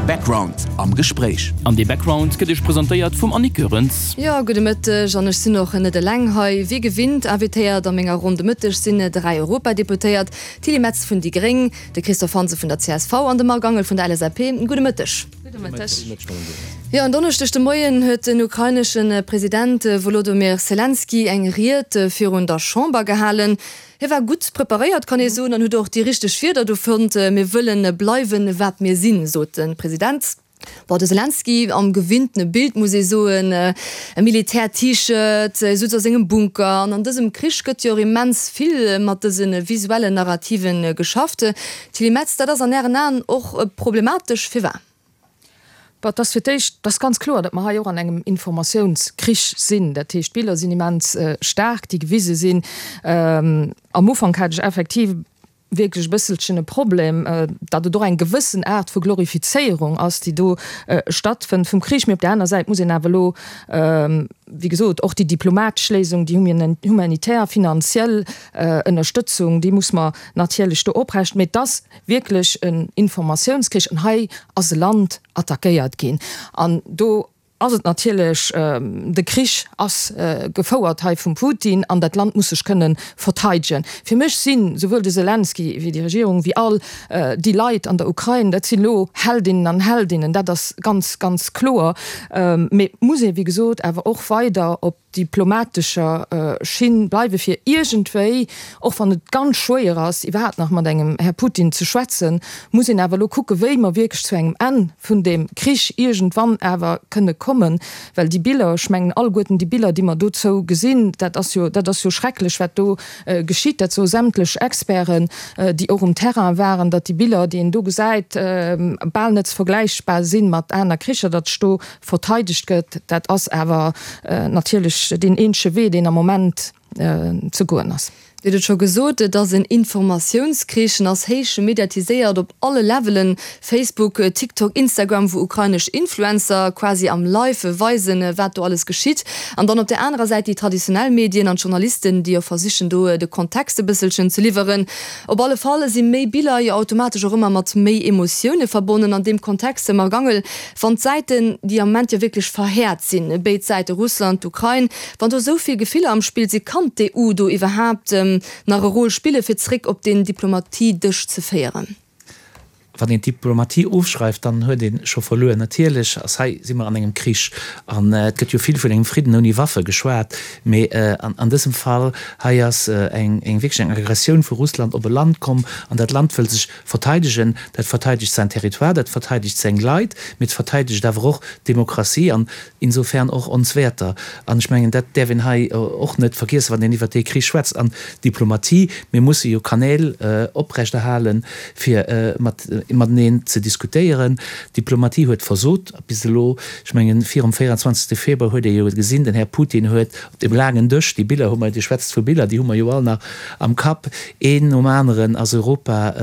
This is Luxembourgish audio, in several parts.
Background am Gespréich. An dee Background gëtt Iech presentéiert vum Annick Goerens. Jo, gudde Mëtteg an ech sinn och net eleng hei. Wéi gewinnt invitéiert a menger Ronn de Mëtteg sinn 3 Europadeputéiert, d'Tilly Metz vun déi Gréng, de Christophe Hansen vun der csv an de Marc Angel vun der LSAP. Gudde Mëtteg. Gudde Mëtteg. Jo, en Donneschdeg de Moien huet den ukrainesche President Wolodomyr Selenskyj eng Ried virun der Chamber gehalen. Hie war gutt preparéiert, kann ee soen, an huet och déi richteg Wierder do fonnt. Mir wëlle bleiwen, wat mir sinn, sot de President. Bon, de Selenskyj am gewinntene Bild, muss ee soen, e Militär-T-Shirt, e sutz a sengem Bunker. An an dësem Krich gëtt jo och immens vill mat dëse visuellen Narrative geschafft. Tilly Metz, dat ass an Ären Aen och problematesch. Firwat? Bon, et ass fir d'éischt, et ass ganz kloer, datt mer hei och an engem Informatiounskrich sinn. Dat heescht, d'Biller sinn immens staark, déi gewise sinn. Am Ufank hat ech effektiv wierklech e bësselchen e Problem, datt et och eng gewëssen Aart vu Glorifizéierung ass, déi do stattfënnt vum Krich. Mee op där aner Säit muss een awer elo, wéi gesot, och déi diplomatesch Léisung, déi humanitär, finanziell Ënnerstëtzung, déi muss mer natierlech do oprecht. Mee et ass wierklech en Informatiounskrich an hei ass e Land attackéiert ginn an do ass et natierlech, de Krich ass gefouert hei vum Putin an dat Land muss sech kënne verteidegen. Fir mech si souwuel de Selenskyj wéi déi Regierung, wéi all déi Leit an der Ukrain, dat sinn elo Heldinnen an Heldinnen, dat ass ganz, ganz kloer. Mee et muss ee wéi gesot awer och weider op diplomatescher Schinn bleiwe fir iergendwéi, och wann et ganz schwéier ass iwwerhaapt nach mat engem Här Putin ze schwätzen, muss een awer elo kucke wéi mer wierklech zu engem Enn vun deem Krich iergendwann awer kënne kommen, well déi Biller, ech mengen alleguerten déi Biller déi mer dozou gesinn, dat ass jo, dat ass jo schrecklech wat do geschitt, dat soe sämtlech Experten déi och um Terrain waren, datt déi Biller déi een do gesäit bal net ze vergläichbar sinn mat aner Kricher, datt sech do verteidegt gëtt, dat ass awer natierlech deen eenzege Wee, deen am Moment ze goen ass. Dir hutt et scho gesot, et ass en Informatiounskrich, en ass héich mediatiséiert op alle Levelen, Facebook, TikTok, Instagram, wou ukrainesch Influencer quasi am Live weisen, wat do alles geschitt. An dann op där anerer Säit déi traditionell Medien an d'Journalisten, déi jo versichen, do de Kontext e bësselchen ze liwweren. Op alle Fall si méi Biller jo automatesch och ëmmer mat méi Emotioune verbonnen. An deem Kontext, Marc Angel, Wann d'Säiten, déi am Moment jo wierklech verhäert sinn, béid Säite, Russland, d'Ukrain, wann do esou vill Gefiller am Spill sinn, kann d'EU do iwwerhaapt nach e Rôle spillen, fir zréck op deen Diplomatiedësch ze féieren? Wann een d'Diplomatie ofschreift, dann huet ee scho verluer. Natierlech ass hei, si mer an engem Krich an et gëtt jo vill vun engem Fridden ouni Waffe geschwat, mee an dësem Fall hei ass eng wierklech eng Aggressioun vu Russland op e Land komm an dat Land wëll sech Verteidegen, dat verteidegt säin Territoire, dat verteidegt seng Leit, mee et verteidegt awer och d'Demokratie an insofern och ons Wäerter. An ech mengen, dat däerf een hei och net vergiessen, wann een iwwert dee Krich schwätzt. An d'Diplomatie, mir musse jo Kanäl oprechterhalen, fir mateneen ze diskutéieren. D'Diplomatie huet versot bis elo. Ech mengen, virum 24. Februar huet ee jo gesinn, den Här Putin huet Op deem laangen Dësch, déi Biller hu mer, Dir schwätzt vu Biller, déi hu mer jo all nach am Kapp, een nom aneren ass Europa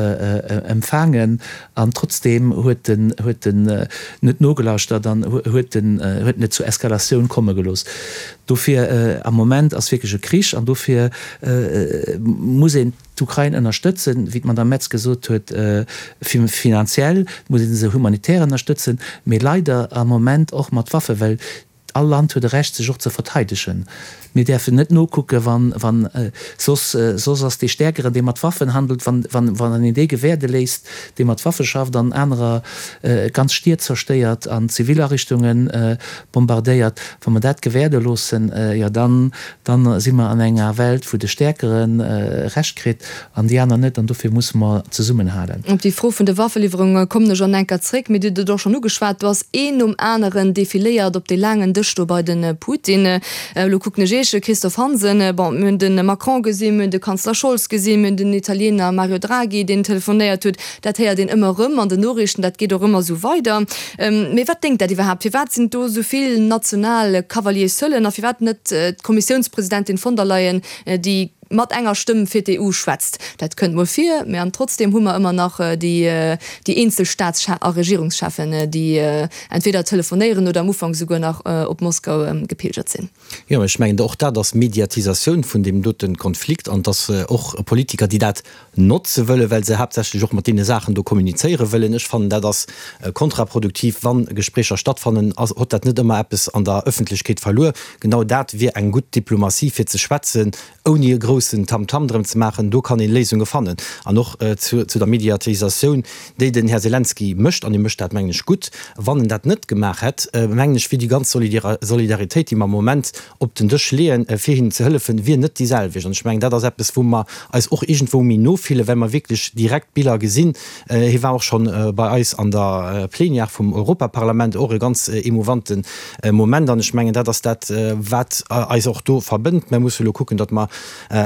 empfaangen an trotzdeem huet en, huet en net nogelauschtert an huet en, huet en et zur Eskalatioun komme gelooss. Dofir, am Moment ass wierklech e Krich an dofir muss een d'Ukrain ënnerstëtzen, wéi d'Madame Metz gesot huet, finanziell, muss ee se humanitär ënnerstëtzen, mee leider am Moment och mat Waffen, well All Land huet e Recht sech och ze verteidegen. Mir däerfen net nokucken, wann, wann, soss, soss ass dee Stäerkeren, dee mat Waffen handelt, wann, wann, wann een dee gewäerde léisst, dee mat Waffe schafft an anerer ganz Stied zerstéiert an zivil Ariichtunge bombardéiert, wa mer dat gewäerde loossen, jo dann, dann si mer an enger Welt, wou de Stäerkere Recht kritt An déi aner net. An dofir musse mer zesummenhalen. Op déi Fro vun de Waffeliwwerunge kommen ech an enker zréck. Mee Dir hutt et och schonn ugeschwat, do ass een nom aneren defiléiert op dee laangen Dësch do bei de Putin. Elo kucken ech Iech, Christophe Hansen. Bon, mir hunn de Macron gesinn, mir hunn de Kanzler Scholz gesinn, mir hunn den Italiener Mario Draghi, deen telefonéiert huet. Dat héiert een ëmmer erëm an den Noriichten, dat geet och ëmmer esou weider. Mee wat déngt dat iwwerhaapt? Firwat sinn do esou vill national Cavaliers seulen a firwat net d'Kommissiounspresidentin von der Leyen, déi. mat enger Stëmm fir d'EU schwätzt. Dat kënnt mol vir, mä an trotzdeem hu mer ëmmer nach déi déi eenzel Staats a Regierungscheffen, déi entweder telefonéieren oder am Ufank souguer nach op Moskau gepilgert sinn. Jo, ech mengen, och dat ass Mediatisatioun vun deem dote Konflikt an et ass och Politiker, déi dat notze wëllen, well se haaptsächlech och mat deene Saachen do kommunizéiere wëllen. Ech fannen, dat ass kontraproduktiv. Wa Gespréicher stattfannen, ass, huet dat net ëmmer eppes an der Ëffentlechkeet verluer. Genau dat wier eng gutt Diplomatie, fir ze schwätzen, ouni e groussen Tamtam drëm ze maachen. Do kann ee Léisunge fannen. An och zu der Mediatisatioun, déi den Här Selenskyj mécht, an hie mécht dat, mengen ech, gutt. Wann en dat net gemaach hätt, mengen ech, wier déi ganz Solidaritéit, déi mer am Moment op den Dësch leeën, fir hinnen ze hëllefen, wier net déi selwecht. An ech mengen, dat ass eppes, wou mer eis och iergendwou méi no fillen, well mer wierklech direkt Biller gesinn. Hie war och scho bei eis an der Plenière vum Europaparlament, och e ganz emouvante Moment. An ech mengen, dat ass dat, wat eis och do verbënnt. Mer musse elo kucken, datt mer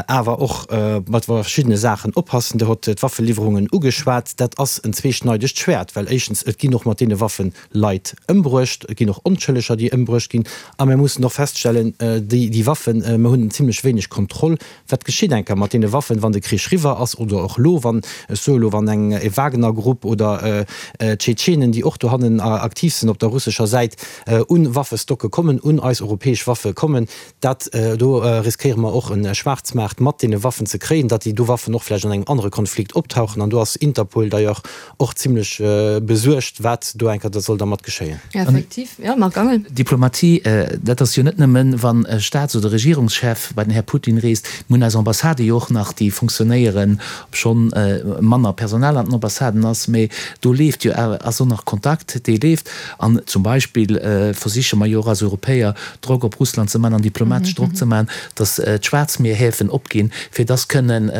awer och mat verschiddene Saachen oppassen. Dir hott d'Waffeliwwerungen ugeschwat. Dat ass en zweeschneidegt Schwäert, well éischtens, et ginn och mat deene Waffen Leit ëmbruecht, et ginn och Onschëlleger, déi ëmbruecht ginn. A mir mussen och feststellen, déi, déi Waffen, mir hunn zimlech wéineg Kontroll, wat geschitt enker mat deene Waffen, wann de Krich riwwer ass oder och elo, wann, ech soe elo, wann eng e Wagner-Grupp oder Tschetschenen, déi och dohannen aktiv sinn op der russescher Säit, un Waffestocke kommen, un eis europäesch Waffe kommen. Dat do riskéiere mer och e Schwaarzmaart mat deene Waffen ze kréien, datt déi do Waffen och vläicht an engem anere Konflikt optauchen. An do ass Interpol d'ailleurs och zimlech besuergt, wat do eng Kéier soll dermat geschéien. Effektiv, jo, Marc Angel. Diplomatie, dat ass jo net nëmmen, wann e Staats oder Regierungschef bei den Här Putin reest. Mir hunn eis Ambassadë jo och nach, déi funktionéieren, obschonn manner Personal an den Ambassaden ass, mä do leeft jo awer, ass och nach Kontakt, dee leeft. An zum Beispill versiche mer jo och als Europäer, Drock op Russland ze man an diplomatesch Drock ze man, datt d'Schwaarzmierhäfen opginn, fir datt kënnen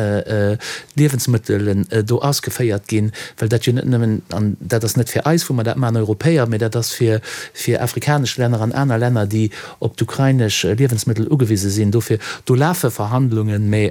Liewensmëttelen do ausgeféiert ginn, well dat jo net nëmmen, an dat ass net fir eis, wou mer dat man, Europäer, mä dat ass fir fir afrikanesch Länner an aner Länner, déi op d'ukrainesch Liewensmëttel ugewise sinn. Dofir, do lafe Verhandlungen, mä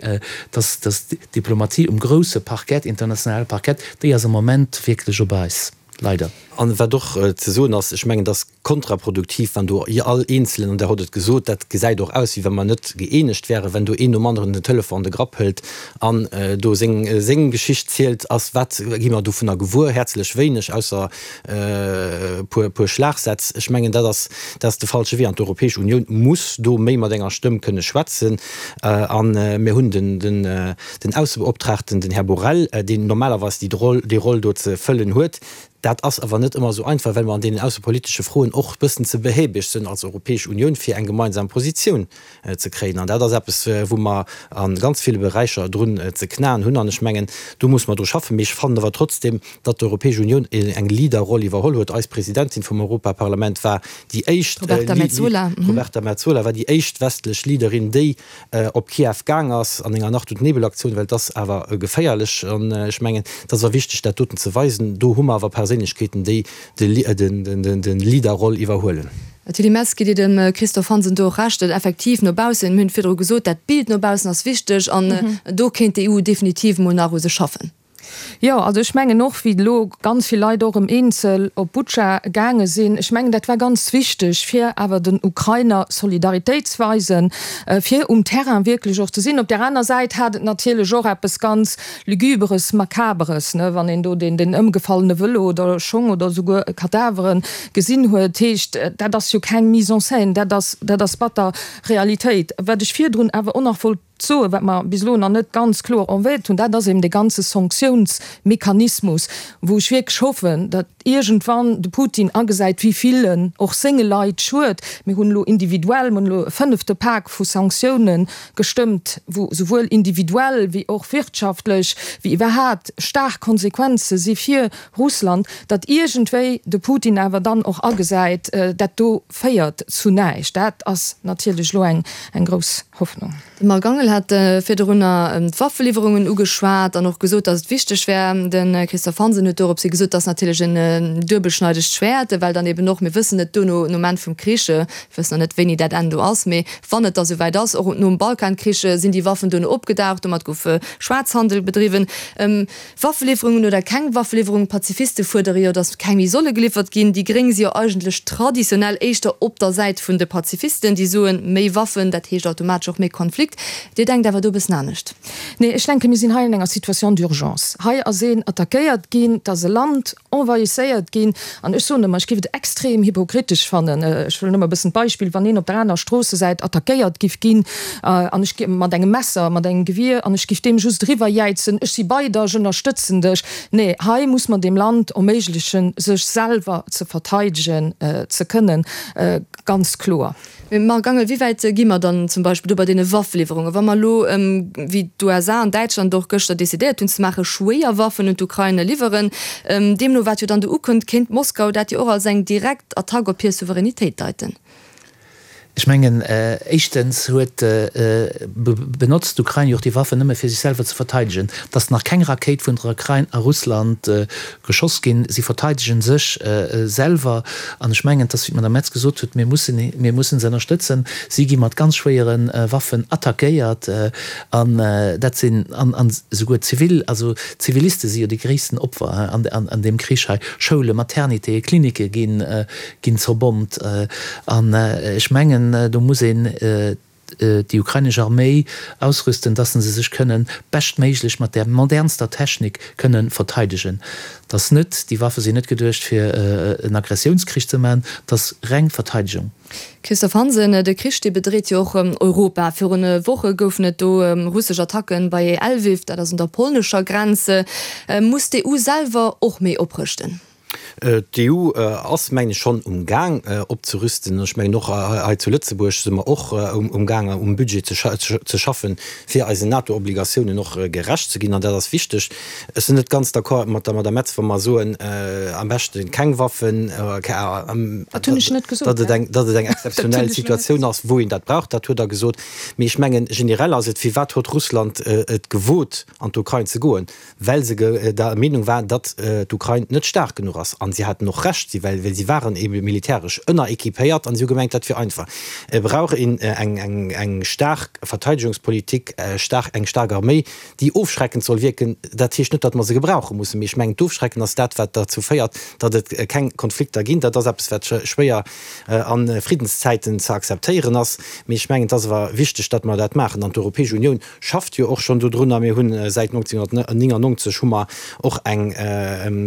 datt datt d'Diplomatie um grousse Parkett, internationale Parkett, déi ass am Moment wierklech op Eis. Leider. An wat och ze soen ass, ech mengen, et ass kontraproduktiv, wann do all Eenzelen, an Der hott et gesot, dat gesäit och aus, wéi wa mer net gëeenegt wären, wenn do een nom aneren den Telefon an de Grapp hëlt an do seng seng Geschicht zielt, ass, wat gi mer dovunner gewuer? Häerzlech wéineg, ausser e puer puer Schlagsätz. Ech mengen, dat ass dat ass de falsche Wee an d'Europäesch Unioun muss do méi mat enger Stëmm kënne schwätzen. A mir hunn den den Den Aussebeoptraagten, den Här Borrell, deen normalerweis déi Roll, déi Roll do ze fëllen huet. Dat ass awer net ëmmer esou einfach, well mer an deenen aussepolitesche Froen och e bëssen ze behäbeg sënn als Europäesch Unioun, fir eng gemeinsam Positioun ze kréien. An dat ass eppes, wou mer a ganz ville Beräicher drun ze knaen hunn. An ech mengen, do muss mer dru schaffen. Mee ech fannen awer trotzdem, datt d'Europäesch Unioun eng Leaderroll iwwerholl huet. Eis Presidentin vum Europaparlament war déi éischt, Roberta Metsola, Roberta Metsola war déi éischt westlech Leaderin, déi op Kiew gaang ass an enger Nacht und Nebel-Aktioun, well et ass awer geféierlech. An ech mengen, et ass awer wichteg, dat doten ze weisen. Do hu mer awer Perséinlechkeeten, déi de Leader-Roll iwwerhuelen. Tilly Metz, Gitt Dir dem Christophe Hansen do och Recht, datt effektiv no baussen, mir hunn et virdru gesot, dat Bild no baussen ass wichteg an do kéint d'EU definitiv mol nach u sech schaffen? Jo, also ech mengen och, wéi elo ganz vill Leit och erëm eenzel op Butscha gaange sinn, ech mengen, dat war ganz wichteg, fir awer den Ukrainer Solidaritéit ze weisen, fir um Terrain wierklech och ze sinn. Op där aner Säit hat et natierlech och eppes ganz Lügüberes, Makaberes, ne, wann een do deen, deen ëmgefallene Vëlo oder Schong oder souguer Kadavere gesinn huet. Heescht, dat ass jo keng Mise en scène, dat ass, dat ass batter Realitéit. Wat ech virdrun awer och nach wollt soen, wat mer bis elo nach net ganz kloer erwähnt hunn, dat ass eben dee ganze Sanktiounsmechanismus, wou ech wierklech hoffen, datt iergendwann de Putin agesäit, wéi vill en och senge Leit schued. Mir hunn elo individuell, mir hunn elo e fënnefte Pak vu Sanktiounen gestëmmt, wou souwuel individuell wéi och wirtschaftlech, wéi iwwerhaapt staark Konsequenze si fir Russland, datt iergendwéi de Putin awer dann och agesäit, dat do féiert zu näischt. Dat ass natierlech elo eng grouss Hoffnung. De Marc Angel hat virdrunner d'Waffeliwwerungen ugeschwat an och gesot, datt et wichteg wär. De Christophe Hansen huet doropshi gesot, datt natierlech en. en duebelschneidegt Schwäert, well dann eben och, mir wëssen et duerno, nom Enn vum Krich, mir wëssen nach net wéini dat Enn do ass, mee wann et da souwäit ass, och nom Balkankrich sinn déi Waffen duerno opgedaucht, domat gouf Schwaarzhandel bedriwwen. Waffeliwwerungen oder keng Waffeliwwerungen, d'Pazifiste fuerdere jo, datt keng méi solle geliwwert ginn. Déi Gréng si jo eigentlech traditionell éischter op der Säit vun de Pazifisten, déi soen, méi Waffen, dat heescht automatesch och méi Konflikt. Dir denkt awer do e bëssen anescht. Nee, ech denken, mir sinn hei an enger Situation d'urgence. Hei ass een attackéiert ginn, et ass e Land envahisséiert ginn. An ech soen ëmmer, ech géif et extrem hypokritesch fannen, ech wëll nëmme e bëssen d'Beispill, wann een op der aner Stroossesäit attackéiert giff ginn an ech mat engem Messer, mat engem Gewier, an ech giff deem just eriwwerjäizen, ech si bei der, ech ënnerstëtzen dech. Nee, hei muss mer deem Land erméiglechen, sech selwer ze verteidegen ze kënnen, ganz kloer. Mee Marc Angel, wéi wäit gi mer dann zum Beispill do bei deene Waffeliwwerungen, wa mer elo, wéi d'USA an Däitschland och gëschter decidéiert hunn ze maachen, schwéier Waffen un d'Ukrain liwweren? Deemno wat jo dann do ukënnt, kéint Moskau dat jo och als eng direkt Attack op hir Souveränitéit deiten. Ech mengen, éischtens huet, benotzt d'Ukrain jo och déi Waffen nëmme fir sech selwer ze verteidegen. Et ass nach keng Rakéit vun der Ukrain a Russland geschoss ginn. Si verteidegen sech selwer. An ech mengen, et ass, wéi d'Madame Metz gesot huet, mir mussen, mir mussen se ënnerstëtzen. Si gi mat ganz schwéiere Waffen attackéiert. An dat sinn, an, an esouguer zivil, also Ziviliste si jo déi gréissten Opfer an, an, an deem Krich hei. Schoulen, Maternitéen, Klinicke ginn, ginn zerbommt. An ech mengen, do muss een déi ukrainesch Arméi ausrüsten, dass se sech kënnen beschtméiglech mat där modernster Technik kënnen verteidegen. Dass net, déi Waffe sinn net geduecht fir en Aggressiounskrich ze maachen, dass reng Verteidegung. Christophe Hansen, De Krich dee bedreet jo och Europa. Virun Woche goufen et do russesch Attacken bei Lwiw, dat ass un der polnescher Grenz. Muss d'EU selwer och méi oprëschten? D'EU ass, mengen ech, schonn um Gaang opzerüsten. Ech mengen och hei zu Lëtzebuerg si mer och um Gaang um Budget ze schaffen, fir eisen NATO-Obligatiounen och gerecht ze ginn. An dat ass wichteg. Ech sinn net ganz d'accord mat der Madame Metz, wa mer soen, am beschte keng Waffen, Dat hunn ech net gesot. datt et eng, datt et eng exzeptionell Situatioun ass, wou een dat brauch. Dat huet Der gesot. Mee ech mengen, generell ass et, Firwat huet Russland et gewot, an d'Ukrain ze goen? Well se der Meenung war, datt d'Ukrain net staark genuch ass. An si haten och Recht, si well si waren ebe militäresch ënnerequipéiert an si hu gemengt, dat wier einfach. Et brauch een eng staark Verteidegungspolitik, eng staark Arméi, déi ofschreckend soll wierken. Dat heescht net, datt mer se gebrauche mussen, mee ech mengen, d'Ofschrecken ass dat, wat derzou féiert, datt et keng Konflikter ginn. Dat ass eppes, wat schwéier a Friddenszäiten ze akzeptéieren ass, mee ech mengen, et ass awer wichteg, datt mer dat maachen. An d'Europäesch Unioun schafft jo och schonn dodrunner. Mir hunn säit 1999 hu mer och eng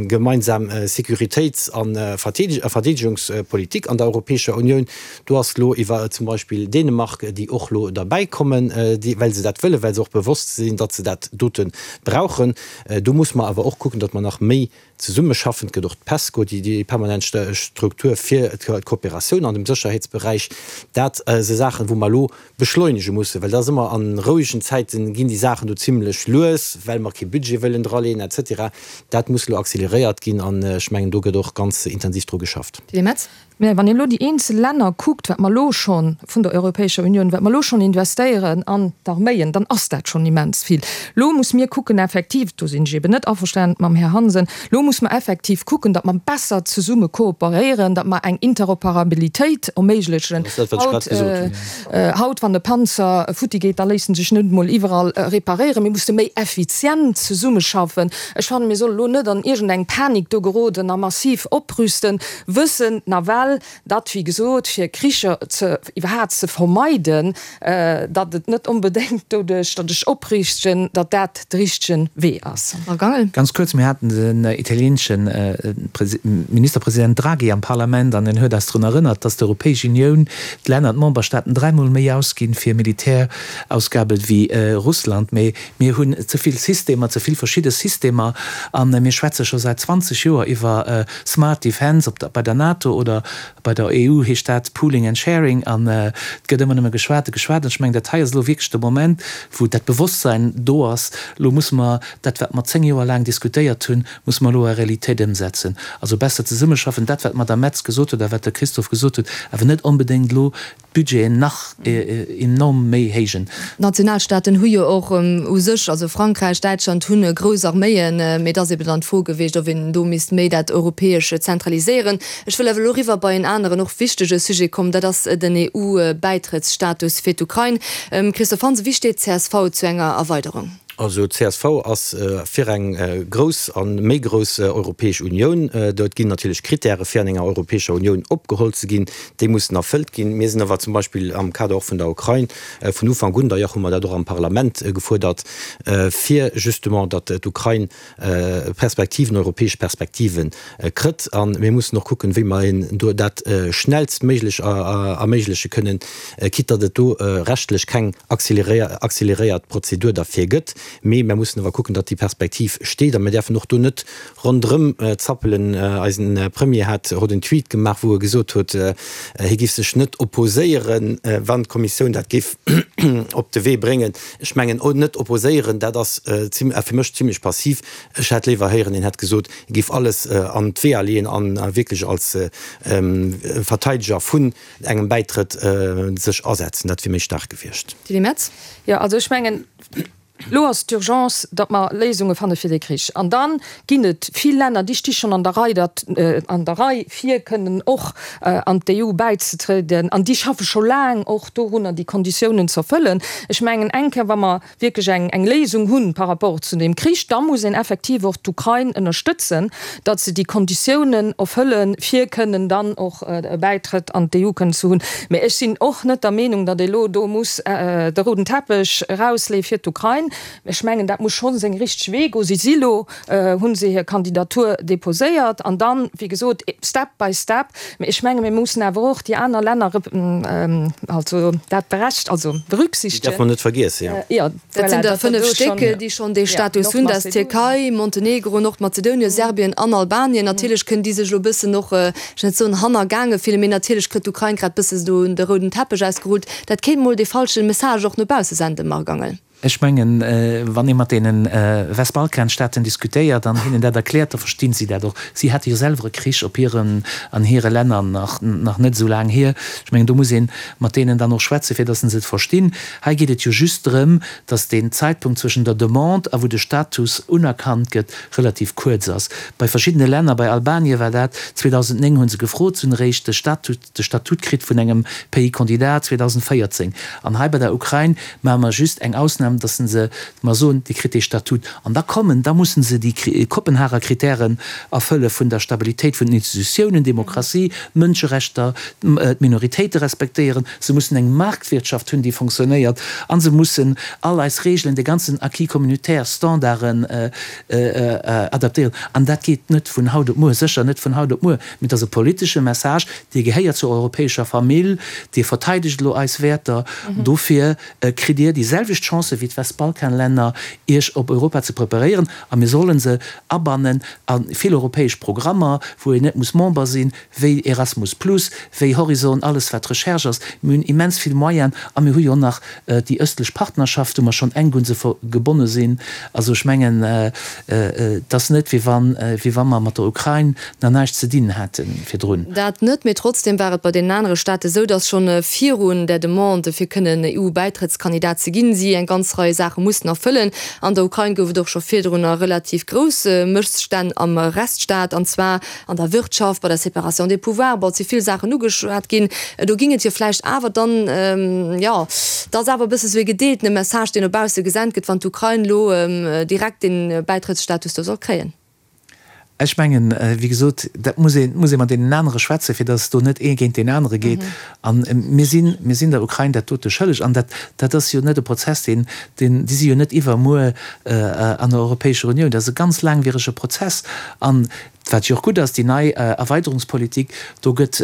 gemeinsam Sécuritéits a Verdeedegungspolitik an der Europäescher Unioun. Do ass elo iwwer zum Beispill Dänemark, déi och elo derbäikommen, well se dat wëllen, well se och bewosst sinn, datt se dat dote brauchen. Do muss mer awer och kucken, datt mer nach méi Zesummeschaffen. Et gëtt och d'PESCO, déi permanent Struktur fir d'Kooperatioun an dem Sécherheetsberäich. Dat si Saachen, wou mer elo beschleunege mussen, well dat ass ëmmer, a rouegen Zäite ginn déi Saachen do zimlech lues, well mer kee Budget wëllen draleen et cetera. Dat muss elo acceleréiert ginn an ech mengen, do gëtt och ganz intensiv dru geschafft. Tilly Metz. Mä wann een elo déi eenzel Länner kuckt, wat mer elo scho vun der Europäescher Unioun, wat mer elo schonn investéieren an d'Arméien, dann ass dat schonn immens vill. Elo muss mir kucken effektiv, do sinn ech eben net averstanen mam Här Hansen, elo muss mer effektiv kucken, datt mer besser zesumme kooperéieren, datt mer eng Interoperabilitéit erméiglechen. Dat ass dat, wat ech grad gesot hunn. Haut, wann e Panzer futti geet, da léisst en sech net emol iwwerall reparéieren. Mir musse méi effizient zesummeschaffen. Ech fannen, mir solle lo net an iergendeng Panik do geroden a massiv oprüsten. Wëssen nawell, datt, wéi gesot, fir Kricher ze iwwerhaapt ze vermeiden, datt et net onbedéngt doduerch, datt ech opriichten, datt dat de richtege Wee ass. Marc Angel. Ganz kuerz, Mir haten den italieenesche Ministerpresident Draghi am Parlament an en huet eis drun erënnert, datt d'Europäesch Unioun, d'Länner, d'Memberstaaten dräimol méi ausginn fir Militärausgabe wéi Russland. Mee Mir hunn ze vill Systemer, ze vill verschidde Systemer a mir schwätze scho säit 20 Joer iwwer Smart Defence, ob bei der NATO oder bei der EU heescht dat Pooling and Sharing an et gëtt ëmmer nëmme geschwat a geschwat. An ech mengen, dat hei ass elo wierklech de Moment, wou dat Bewosstsein do ass, elo musse mer dat, wat mer 10 Joer laang diskutéiert hunn, musse mer elo a Realitéit ëmsetzen. Also besser zesummeschaffen, dat wat d'Madame Metz gesot huet a wat de Christophe gesot huet, awer net onbedéngt elo. d'Budgeten nach enorm méi héijen. D'Nationalstaaten hu jo och u sech, also Frankräich, Däitschland hunn grouss Arméien, mee et ass eben dann d'Fro gewiescht, ob een do misst méi dat Europäesche zentraliséieren. Ech wëll awer elo eriwwer bei en aneren och wichtege Sujet kommen, dat ass den EU-Bäitrëttsstatus fir d'Ukrain. Christophe Hansen, wéi steet d'CSV zu enger Erweiderung? Also csv ass fir eng grouss a méi grouss Europäesch Unioun. Do ginn natierlech Krittäre fir an enger Europäescher Unioun opgeholl ze ginn, déi mussen erfëllt ginn. Mir sinn awer zum Beispill am Kader och vun der Ukrain vun Ufank un, d'ailleurs hu mer dat och am Parlament gefuerdert, fir justement, datt d'Ukrain Perspektiven, europäesch Perspektive kritt. A mir mussen och kucken, wéi mer hinnen do dat schnellstméiglech erméigleche kënnen, quitte datt et do rechtlech keng accéléréiert Prozedur derfir gëtt. Mee mer mussen awer kucken, datt déi Perspektiv steet. A mir däerfen och do net ronderëm zappelen. Eisen Premier hat haut en Tweet gemaach, wou e gesot huet, hie géif sech net opposéieren, wann d'Kommissioun dat géif op de Wee bréngen. Ech mengen, net opposéieren, dat ass fir mech zimlech passiv. Ech hätt léiwer héieren, een hätt gesot, e géif alles an d'Weeër leeën a wierklech als Verteideger vun engem Bäitrëtt sech asetzen. Dat wier méi staark gewiescht. Tilly Metz. Jo, also ech mengen, elo ass d'Urgence, datt mer Léisunge fanne fir dee Krich. An da ginn et vill Länner, déi sti schonn an der Rei, datt an der Rei fir kënnen och an d'EU bäizetrieden. An déi schaffe scho laang och dorunner, déi Konditiounen ze erfëllen. Ech mengen, eng Kéier, wa mer wierklech eng eng Léisung hunn par rapport zu deem Krich, da muss een effektiv och d'Ukrain ënnerstëtzen, datt se déi Konditiounen erfëllen, fir kënnen dann och e Bäitrëtt an d'EU kënnen ze hunn. Mä ech sinn och net der Meenung, datt ee lo do muss de rouden Teppech erausleeë fir d'Ukrain. Ech mengen, dat muss scho seng richteg Wee goen. Si si lo, hu se hir Kandidatur deposéiert an dann, wéi gesot, step by step. Mä ech menge mir mussen awer och déi aner Länner, also dat berecht, also berücksichtegen. Déi däerf mer net vergiessen, jo. Jo, Dat sinn der 5 Stéck, déi schonn dee Status hunn. Dat ass d'Tierkei, Montenegro, Nordmazedonien, Serbien an Albanien. Natierlech kënnen déi sech elo e bëssen och, ech wëll net soen hannergaange fillen, mee natierlech kritt d'Ukrain grad bësse do de rouden Teppech ausgerullt. Dat kéint mol dee falsche Message och no bausse senden, Marc Angel. Ech mengen, wann ee mat deene Westbalkanstaaten diskutéiert an hinnen dat erkläert, da verstinn si dat och. Si hate jo selwer e Krich op hiren, an hire Länner nach, nach net esou laang hier. Ech mengen, do muss ee mat deenen dann och schwätzen, fir datt se et verstinn. Hei geet et jo just drëm, datt deen Zäitpunkt zwëschen der Demande a wou de Status unerkannt gëtt, relativ kuerz ass. Bei verschiddene Länner, bei Albanien war dat 2009, hu se gefrot, se hunn eréischt de Statut, de Statut kritt vun engem Pays candidat 2014. An hei bei der Ukrain maache mer just eng Ausnam, dass se, mer soen, Dir kritt dee Statut. An da kommen, da mussen se déi Kopenhager Kritären erfëlle vun der Stabilitéit vun den Institutiounen, Demokratie, Mënscherechter, d'Minoritéite respektéieren. Se mussen eng Marktwirtschaft hunn, déi fonctionnéiert. A se mussen all eis Regeln, de ganzen Acquis communautaire, Standarden adaptéieren. An dat geet net vun haut op muer, sécher net vun haut op muer. Mee et ass e politesche Message, Dir gehéiert zur europäescher Famill, Dir verteidegt elo eis Wäerter, dofir kritt Dir déi selwecht Chancë wéi d'Westbalkanlänner, Iech op Europa ze preparéieren. A mir solle se abannen a vill europäesch Programmer, wou een net muss Member sinn, wéi Erasmus plus, wéi Horizon, alles wat Recherche ass. Mir hunn immens vill Moyenen a mir hu jo nach déi ëstlech Partnerschaft, wou mer schonn enk un se gebonne sinn. Also ech mengen, et ass net, wéi wann, wéi wa mer mat der Ukrain nach näischt ze dinn hätte virdrun. Dat net, mee trotzdem war et bei deenen anere Staate sou, datt schonn virun där Demande, fir kënnen EU-Bäitrëttskandidat ze ginn, si eng ganz Rei Saache mussten erfëllen. An der Ukrain gouf et och scho virdrunner relativ grouss Mësstänn am Rechtsstaat, an zwar An der Wirtschaft, bei der Séparation des pouvoirs, bon, et si vill Saachen ugeschwat ginn. Do ging et jo vläicht awer dann, jo, et ass awer e bësse sou ee gedeeltene Message, deen no bausse gesent gëtt, wann d'Ukrain elo direkt dee Bäitrëttsstatus do soll kréien. Ech mengen, wéi gesot, dat muss ee, muss ee mat deenen anere schwätzen, fir datt do net ee géint deen anere geet. A mir sinn, mir sinn der Ukrain dat dote schëlleg. An dat, dat ass jo net e Prozess, deen, deen, déi si jo net iwwermuer an der Europäescher Unioun. Dat ass e ganz laangwierege Prozess. An wat jo och gutt ass, déi nei Erweiderungspolitik, do gëtt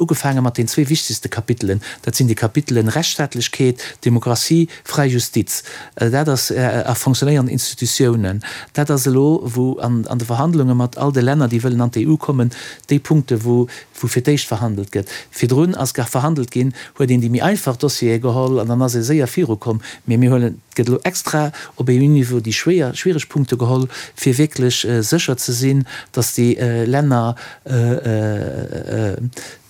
ugefaange mat den zwee wichtegste Kapitelen. Dat sinn déi Kapitelen Rechtsstaatlechkeet, Demokratie, fräi Justiz. Dat ass, a fonctionnéierend Institutiounen. Dat ass elo, wou an de Verhandlunge mat all de Länner, déi wëllen an d'EU kommen, déi Punkte wou wou fir d'éischt verhandelt gëtt. Virdrun ass gar verhandelt ginn, huet een déi méi einfach Dossiere geholl an dann ass ee séier virukomm. Mee mir huelen, et gëtt elo extra op EU-Niveau déi schwéier, schwiereg Punkte geholl, fir wierklech sécher ze sinn, datt déi Länner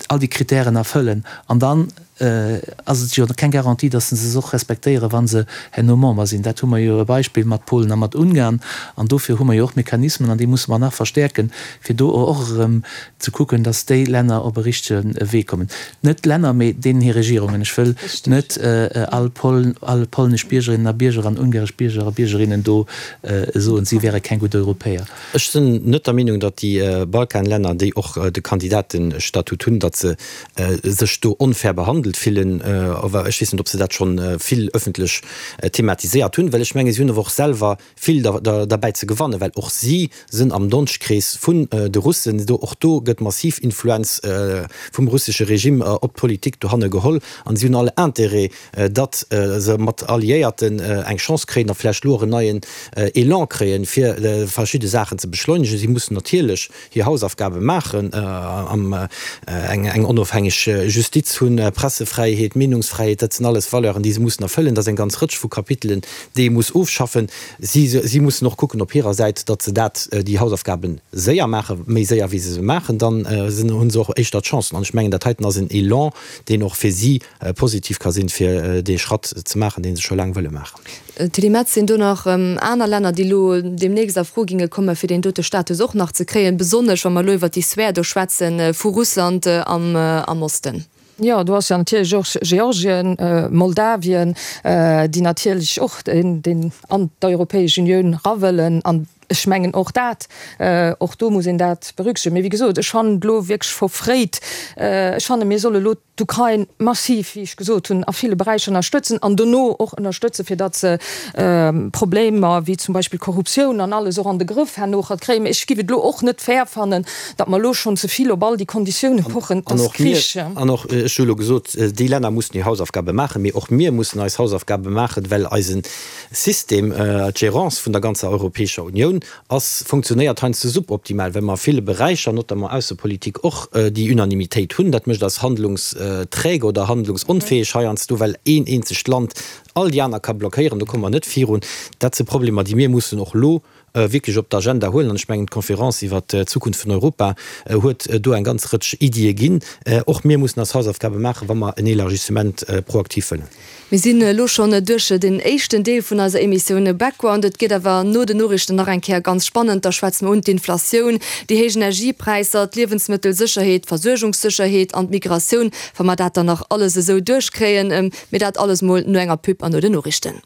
all déi Kritären erfëllen. An dann. ass et jo keng Garantie, datt se se och respektéieren, wa se herno Member sinn. Dat hu mer jo e Beispill mat Polen a mat Ungarn. An dofir hu mer jo och Mechanismen, an déi musse mer nach verstäerken, fir do och erëm ze kucken, datt déi Länner op e richtege Wee kommen. Net d'Länner, mee deenen hir Regierungen. Ech wëll net all all polnesch Biergerinnen a Bierger an ungaresch Bierger a Biergerinnen do soen, si wäre keng gutt Europäer. Ech sinn net der Meenung, datt déi Balkanlänner, déi och de Kandidatestatut hunn, datt se sech do onfair behandelt fillen. Awer ech weess net, ob se dat scho vill ëffentlech thematiséiert hunn, well ech menge si hunn awer och selwer vill derbäi ze gewannen, well och si sinn am Donschtkrees vun de Russen. Do, och do gëtt massiv Influenz vum russesche Regime op d'Politik dohanne geholl an si hunn all Intérêt, datt se mat Alliéierten eng Chance kréien a vläicht elo och en neien Elan kréien, fir verschidde Saachen ze beschleunegen. Si mussen natierlech hir Hausaufgabe maachen, eng onofhängeg Justiz hunn, Pressefräiheet, Meenungsfräiheet, dat sinn alles Valeuren, déi se mussen erfëllen. Dat ass eng ganz Rëtsch vu Kapitelen, déi ee muss ofschaffen. Si, si mussen och kucken op hirer Säit, datt se dat, déi Hausaufgabe séier maachen, méi séier wéi se se maachen, dann hu se och éischter d'Chancen. An ech mengen, dat heiten ass en Elan, deen och fir si positiv ka sinn, fir dee Schratt ze maachen, dee se scho laang wëlle maachen. Tilly Metz, Sinn do nach aner Länner, déi elo deemnächst a Fro ginge komme fir deen dote Status och nach ze kréien, besonnesch wa mer elo iwwert déi Sphär do schwätze vu Russland am Osten? Jo, do ass jo natierlech och Georgien, Moldawien, déi natierlech och an d'Europäesch Unioun era wëllen. An ech mengen och dat, och do muss een dat berücksichtegen. Mee wéi gesot, ech fannen et elo wierklech verfréit. Ech fanne mir solle elo d'Ukrain massiv, wéi ech gesot hunn, a ville Beräicher ënnerstëtzen an dono och ënnerstëtzen, fir datt se Problemer wéi zum Beispill Korruptioun an alles och an de Grëff herno kréien. Mee ech giff et elo och net fair fannen, datt mer elo schonn ze vill op all déi Konditioune pochen. Et ass Krich. An och, ech hu elo gesot, déi Länner mussen hir Hausaufgabe maachen, mee och mir mussen eis Hausaufgabe maachen, well eise System, d'Gérance vun der ganzer Europäescher Unioun ass, funktionéiert heiansdo suboptimal, well mer a ville Beräicher, notamment Aussepolitik, och déi Unanimitéit hunn. Dat mécht eis handlungsträge oder handlungsonfäeg heiansdo, well een eenzegt Land all déi aner ka blockéieren. Do komme mer net virun. Dat si Problemer, déi mir mussen och elo wierklech op d'Agenda huelen. An ech mengen, d'Conférence iwwert d'Zukunft vun Europa huet do eng ganz Rëtsch Iddie ginn. Och mir mussen eis Hausaufgabe maachen, wa mer en Élargissement proaktiv wëllen. Mir sinn elo schonn duerch den éischten Deel vun eiser Emissioun Background. Et gëtt awer no den Noriichten nach eng Kéier ganz spannend. Da schwätze mer un d'Inflatioun, déi héich Energiepräisser, d'Liewensmëttelsécherheet, d'Versuergungssécherheet an d'Migratioun. Wa mer dat dann nach alles esou duerchkréien. Mee dat alles mol no enger Pub an no den Noriichten.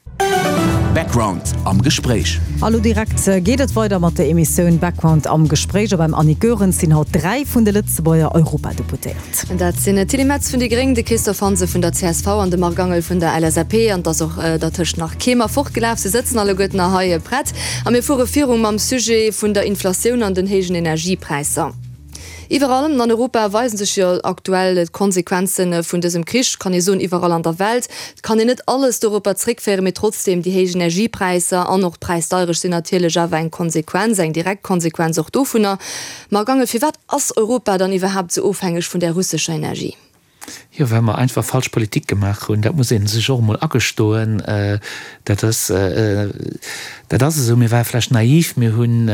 Background am Gespréich. A lo direkt geet et weider mat der Emissioun Background am Gespréich. A beim Annick Goerens sinn haut 3 vun de Lëtzebuerger Europadeputéierten. Dat sinn d'Tilly Metz vun déi Gréng, de Christophe Hansen vun der csv an de Marc Angel vun der LSAP. An et ass och dertëscht nach kee mer fortgelaf. Se sëtzen alleguerten nach hei prett. A mir fuere viru mam Sujet vun der Inflatioun an den héijen Energiepräisser. Iwwerall an Europa weisen sech jo aktuell d'Konsequenze vun dësem Krich, kann ee soen, iwwerall an der Welt. Et kann een net alles doropper zréckféieren, mee trotzdeem, déi héich Energiepräisser an och d'Präisdeierecht sinn natierlech awer eng Konsequenz, eng direkt Konsequenz och dovunner. Marc Angel, firwat ass Europa dann iwwerhaapt esou ofhängeg vun där russescher Energie? Jo, well mer einfach falsch Politik gemaach hunn. Dat muss ee sech och emol agestoen. Dat ass, dat ass esou. Mir ware vläicht naiv. Mir hunn,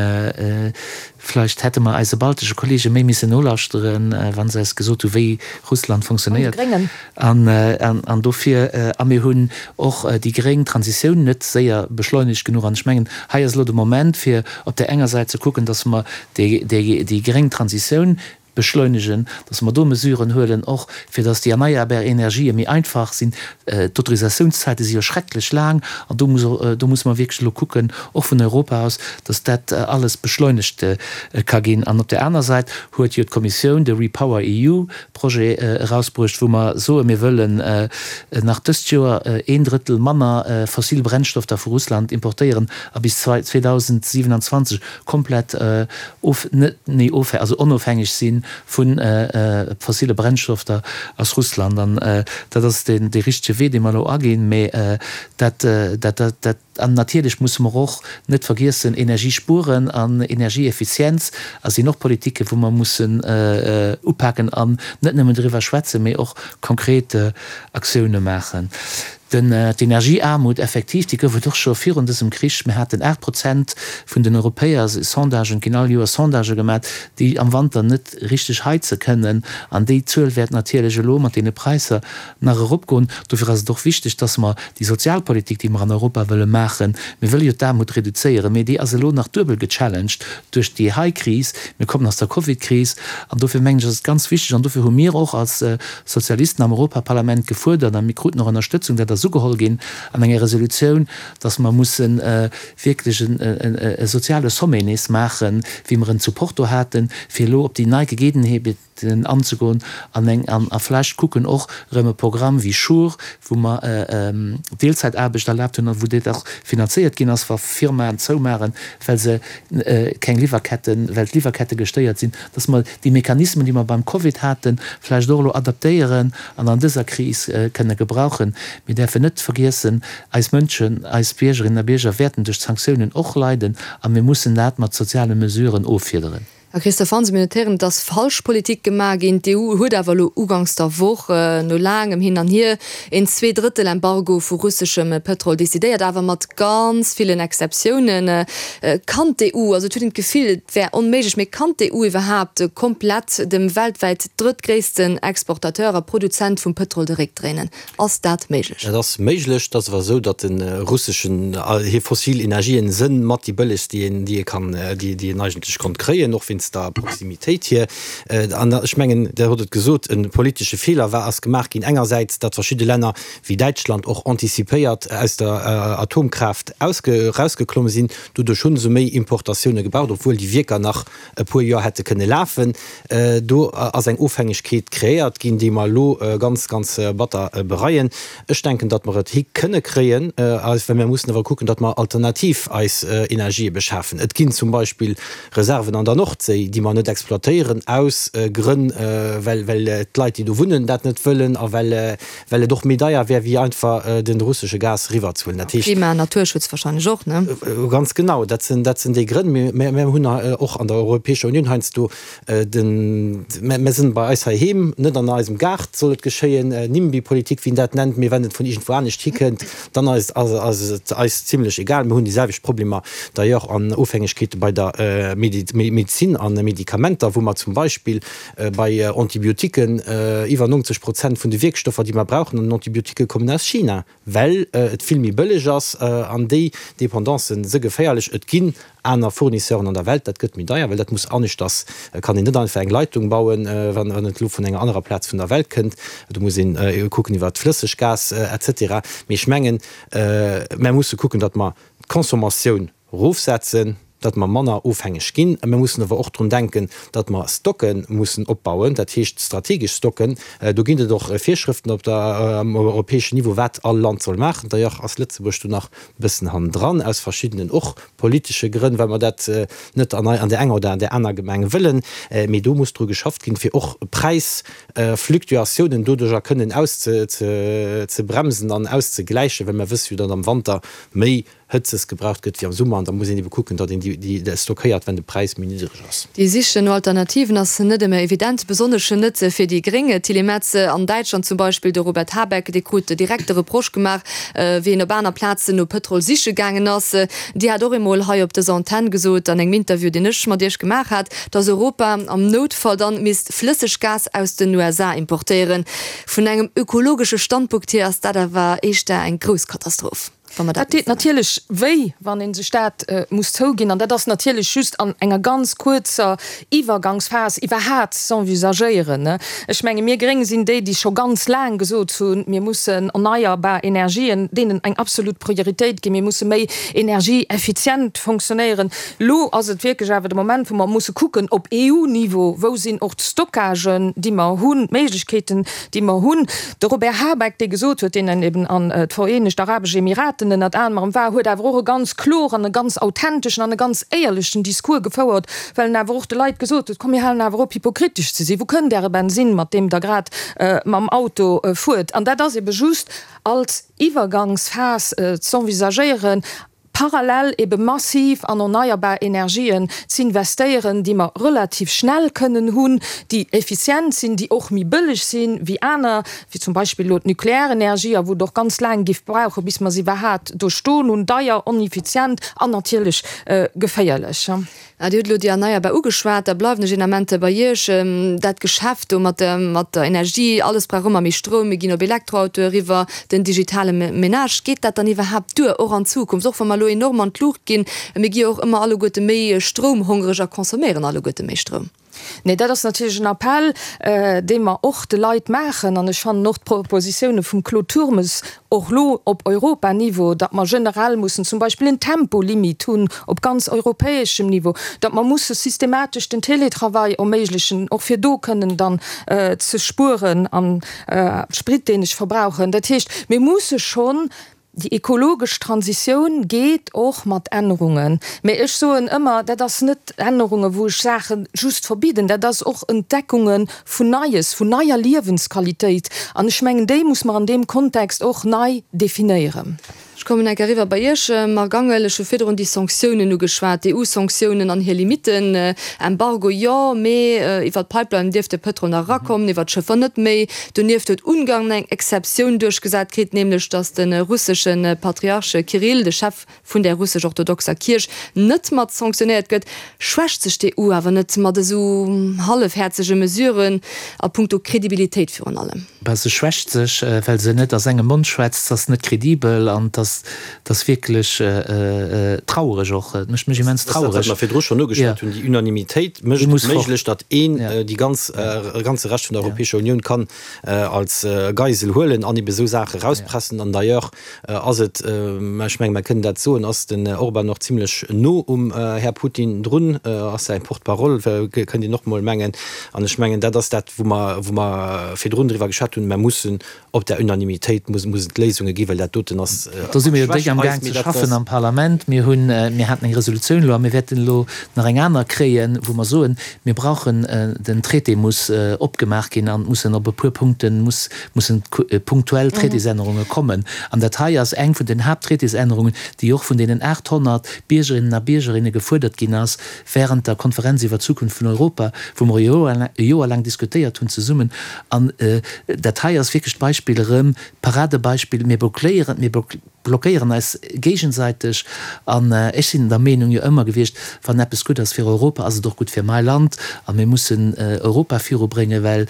vläicht hätte mer eise baltesche Kollege méi missen nolauschteren, wa se eis gesot hu wéi Russland funktionéiert. An de Gréngen. An dofir, a mir hunn och déi gréng Transitioun net séier beschleunegt genuch. An ech mengen, hei ass elo de Moment, fir op där enger Säit ze kucken, dass mer déi gréng Transitioun beschleunegen, dass mer do Mesuren huelen, och fir dass déi erneierbar Energië méi einfach sinn. D'Autorisatiounszäite si jo schrecklech laang an do muss, do musse mer wierklech elo kucken, och vun Europa aus, dass dat alles beschleunegt ka ginn. An op där aner Säit huet jo d'Kommissioun de REPower EU Projet erausbruecht, wou mer soen, mir wëllen nach dëst Joer een Drëttel manner fossil Brennstofter vu Russland importéieren a bis 2027 komplett of, net méi of, also onofhängeg si vu fossile Brennstofter aus Russland. An dat ass dee richtege Wee, dee mer elo aginn. Mä dat, dat, dat. An natierlech musse mer och net vergiessen, Energie spueren an Energieeffizienz a sinn och Politiken, wou mer mussen upaken an net nëmmen driwwer schwätzen, mee och konkret Aktioune maachen. Den, d'Energieaarmut, effektiv, déi gouf et och scho virun dësem Krich. Mir haten 8 Prozent vun den Europäer, Sondagen, et ginn all Joer Sondagë gemaat, déi am Wanter net richteg heize kënnen. An déi Zuel wäert natierlech elo mat deene Präisser nach eropgoen. Dofir ass et och wichteg, dass mer déi Sozialpolitik, déi mer an Europa wëlle maachen, mir wëlle jo d'Aarmut reduzéieren, mee déi ass elo nach duebel gechallenged duerch déi hei Kris, mir kommen aus der Covidkris, an dofir mengen ech, ass et ganz wichteg, an dofir hu mir och als Sozialisten am Europaparlament gefuerdert, a mir kruten och Ënnerstëtzung, dat ass ugeholl ginn an enger Resolutioun, dass mer musse wierklech e soziale Sommet nees maachen, wéi mer en zu Porto haten, fir elo op déi nei Gegebenheeten, den anzegoen an eng an a vläicht kucken och erëm e Programm wéi Sure, wou mer Deelzäitaarbecht erlaabt hunn a wou dat och finanzéiert ginn ass, wa Firmaen zoumaachen, well se keng Liwwerketten, well d'Liwwerkette gestéiert sinn, dass mer déi Mechanismen, déi mer beim Covid haten, vläicht och elo adaptéieren an an dëser Kris kënne gebrauchen. Mir däerfen net vergiessen, eis Mënschen, eis Biergerinnen a Bierger wäerten duerch d'Sanktiounen och leiden a mir mussen dat mat soziale Mesuren offiederen. Här Christophe Hansen, mir notéieren, et ass falsch Politik gemaach ginn. D'EU huet awer elo uganks der Woch, no laangem Hin an Hier, een Zweedrëttel-Embargo vu russeschem Pëtrol decidéiert, awer mat ganz villen Exceptiounen. Kann d'EU, also et huet een d'Gefill, et wär onméiglech, mee kann d'EU iwwerhaapt komplett dem weltwäit drëttgréissten Exportateur a Produzent vum Pëtrol de Réck dréinen? Ass dat méiglech? Dat ass méiglech. Et ass awer esou, datt de russeschen, hir fossil Energien sënn mat déi bëllegst, déi een, déi ee kann, déi, déi een eigentlech konnt kréien, och wéinst der Proximitéit hier. An ech mengen, Der hutt et gesot, e politesche Feeler war, ass gemaach ginn engersäits, datt verschidde Länner wéi Däitschland och antizipéiert aus der Atomkraaft ausge, erausgeklomm sinn. Doduerch hu se méi Importatioune gebraucht, obwuel déi Wierker nach e puer Joer hätte kënne lafen. Do ass eng Ofhängegkeet kreéiert ginn, déi mer elo ganz, ganz batter bereien. Ech denken, datt mer et hi kënne kréien, well mir mussen awer kucken, datt mer alternativ eis Energië beschafen. Et ginn zum Beispill Reserven an der Nordséi, déi mer net exploitéieren aus Grënn, well d'Leit, déi do wunnen, dat net wëllen a well Well et och méi deier wär, wéi einfach de russesche Gas eriwwerzehuelen. Dat heescht. Klima an Naturschutz wahrscheinlech och, ne? Ganz genau, dat sinn, dat sinn déi Grënn. Mir, mir hunn och an der Europäescher Unioun heiansdo den, mir sinn bei eis heiheem, net an eisem Gaart soll et geschéien, Nimby-Politik, wéi een dat nennt, mee wann et vun iergendwou anescht hikënnt, dann ass, ass et eis zimlech egal. Mir hunn déi selwecht Problemer d'ailleurs an Ofhängegkeete bei der Medezin a Medikamenter, wou mer zum Beispill Bei Antibiotiquen, iwwer 90 Prozent vun de Wierkstoffer, déi mer brauchen an den Antibiotiquen, kommen aus China, well et vill méi bëlleg ass. An déi Dependancen se geféierlech. Et ginn aner Fournisseuren an der Welt, dat gëtt méi deier, well dat muss aneschters, kann een net einfach eng Leitung bauen, wann et elo vun enger anerer Plaz vun der Welt kënnt. Do muss een kucken iwwert Flësseggas et cetera. Mee ech mengen, mer musse kucken, datt mer d'Consommatioun Erofsetzen, datt mer manner ofhängeg ginn. Mir mussen awer och drun denken, datt mer Stocke mussen opbauen, dat heescht strategesch Stocken. Do ginn et och Virschrëften op der, um europäeschen Niveau, wat all Land soll maachen. D'ailleurs ass Lëtzebuerg do nach e bëssen hannendran, aus verschiddenen och politesche Grënn, well mer dat net an an där enger oder an där aner Gemeng wëllen. Mee do muss dru geschafft ginn, fir och Präisfluctuatiounen doduerjer kënnen auszebremsen an auszegläichen, well mer wësse jo, datt am Wanter méi Hëtzes gebraucht gëtt wéi am Summer an da muss een ebe kucken, datt een déi stockéiert, wenn de Präis méi niddreg ass. Déi Sich no Alternativen ass net ëmmer evident, besonnesch net fir déi Gréng. D'Tilly Metz an Däitschland zum Beispill, de Robert Habeck, dee krut direkt de Reproche gemaach, wéi en op aner Plazen no Pëtrol siche gaangen ass. Dir hat och eemol hei op dëser Antenn gesot, an engem Interview, deen ech mat Iech gemaach hat, datt Europa am Noutfall dann misst Flësseggas aus den USA importéieren. Vun engem ökologesche Standpunkt hier ass dat awer éischter eng grouss Katastroph. Wa mer dat. Dat deet natierlech wéi, wann ee sech dat muss zouginn. An dat ass natierlech just an enger ganz kuerzer Iwwergangsphas iwwerhat z'envisagéieren. Ech menge mir Gréng sinn déi, déi scho ganz laang gesot hunn, mir mussen erneierbar Energien, deenen eng absolut Prioritéit ginn, mir musse méi energieeffizient fonctionnéieren. Elo ass et wierklech awer de Moment, wou mer musse kucken op EU-Niveau, wou sinn och d'Stockagen, déi mer hunn, d'Méiglechkeeten, déi mer hunn. De Robert Habeck, dee gesot huet, deen eben an d'Vereenegt Arabesch Emiraten ënnert anerem war, huet awer och e ganz kloren, e ganz authenteschen an e ganz éierlechen Discours gefouert, well en awer och de Leit gesot huet, Komm mir halen awer op hypokritesch ze sinn, wou kënnt Äre Bensinn, mat deem Der grad mam Auto fuert? An dat ass ebe just als Iwwergangsphas z'envisagéieren. parallel ebe massiv an erneierbar Energien z'investéieren, déi mer relativ schnell kënnen hunn, déi effizient sinn, déi och méi bëlleg sinn wéi aner, wéi zum Beispill elo d'Nuklearenergie, a wou et och ganz laang giff brauchen, bis mer se iwwerhaat do stoen hunn, deier, oneffizient an natierlech geféierlech. Dir hutt elo déi Erneierbar ugeschwat, da bleiwen ech een Ament bei Iech. Dat Geschäft do mat der, mat der Energie, alles brauch ëmmer méi Stroum, mir ginn op Elektroautoe eriwwer, den digitale Menage, geet dat dann iwwerhaapt duer, och an Zukunft, och wa mer elo enorm an d'Luucht ginn? Mir gi jo och ëmmer alleguerte méi stroumhongereg a consomméieren alleguerte méi Stroum. Nee, dat ass natierlech en Appell, dee mer och de Leit maachen. An ech fannen och d'Propositioune vum Claude Turmes och elo op Europaniveau, datt mer generell mussen zum Beispill en Tempolimit hunn op ganz europäeschem Niveau, datt mer musse systematesch den Télétravail erméiglechen, och fir do kënnen dann ze spueren am Sprit, deen ech verbrauchen. Dat heescht, mir musse schonn Déi ekologesch Transitioun geet och mat Ännerungen. Mä ech soen ëmmer, dat ass net Ännerungen, wou ech Saache just verbidden, dat ass och Entdeckunge vun Neies, vun neier Liewensqualitéit. An ech mengen, déi muss mer an deem Kontext och nei definéieren. Ech kommen enk eriwwer bei Iech, Marc Angel. Ech hu virdrun déi Sanktiounen ugeschwat, d'EU-Sanktiounen an hir Limitten. Embargo jo, mee iwwer d'Pipeline dierf de Pëtrol nach erakommen, iwwer d'Schëffer net méi. Donieft huet Ungarn eng Exceptioun duerchgesat kritt, nämlech datt de russesche Patriarch Kirill, de Chef vun der russesch-orthodoxer Kierch, net mat sanktionéiert gëtt. Schwächt sech d'EU awer net mat esou hallefhäerzege Mesuren a punkto Kredibilitéit virun allem? Bah, se schwächt sech, well se net aus engem Mond schwätzt. Se ass net kredibel an et ass Et ass wierklech trauereg och. Et mécht mech immens trauereg. Dat, wat mer virdru schonn ugeschwat hunn, déi Unanimitéit mécht et méiglech, datt een déi ganz, e ganze Rescht vun der Europäescher Unioun kann als Geisel huelen an ebe esou Saache erauspressen. An d'ailleurs ass et, ech menge mer kënnen dat soen, ass den Orban och zimlech no um Här Putin drun, ass säi Porte-parole, kënnt een och mol mengen. An ech mengen, dat ass dat, wou mer, wou mer virdrun driwwer geschwat hunn, Mer mussen Op der Unanimitéit mussen et Léisunge ginn, well dat doten ass Do si mir jo déck am Gaang ze schaffen am Parlament. Mir hunn, mir haten eng Resolutioun elo a mir wäerten elo nach eng aner kréien, wou mer soen, mir brauchen, den Traité muss opgemaach ginn an et mussen op e puer Punkte muss, mussen punktuell Traitésännerunge kommen. An dat hei ass eng vun den Haapttraitésännerungen, déi och vun deenen 800 Biergerinnen a Biergerinne gefuerdert ginn ass während der Konferenz iwwer d'Zukunft vun Europa, wou mer e Joer laang diskutéiert hunn zesummen. An dat hei ass wierklech d'Beispill erëm, d'Paradebeispill, Mir blockéieren, mir blockéieren eis géigesäiteg. An ech sinn der Meenung jo ëmmer gewiescht, wann eppes gutt ass fir Europa, ass et och gutt fir mäi Land. A mir mussen Europa virubréngen, well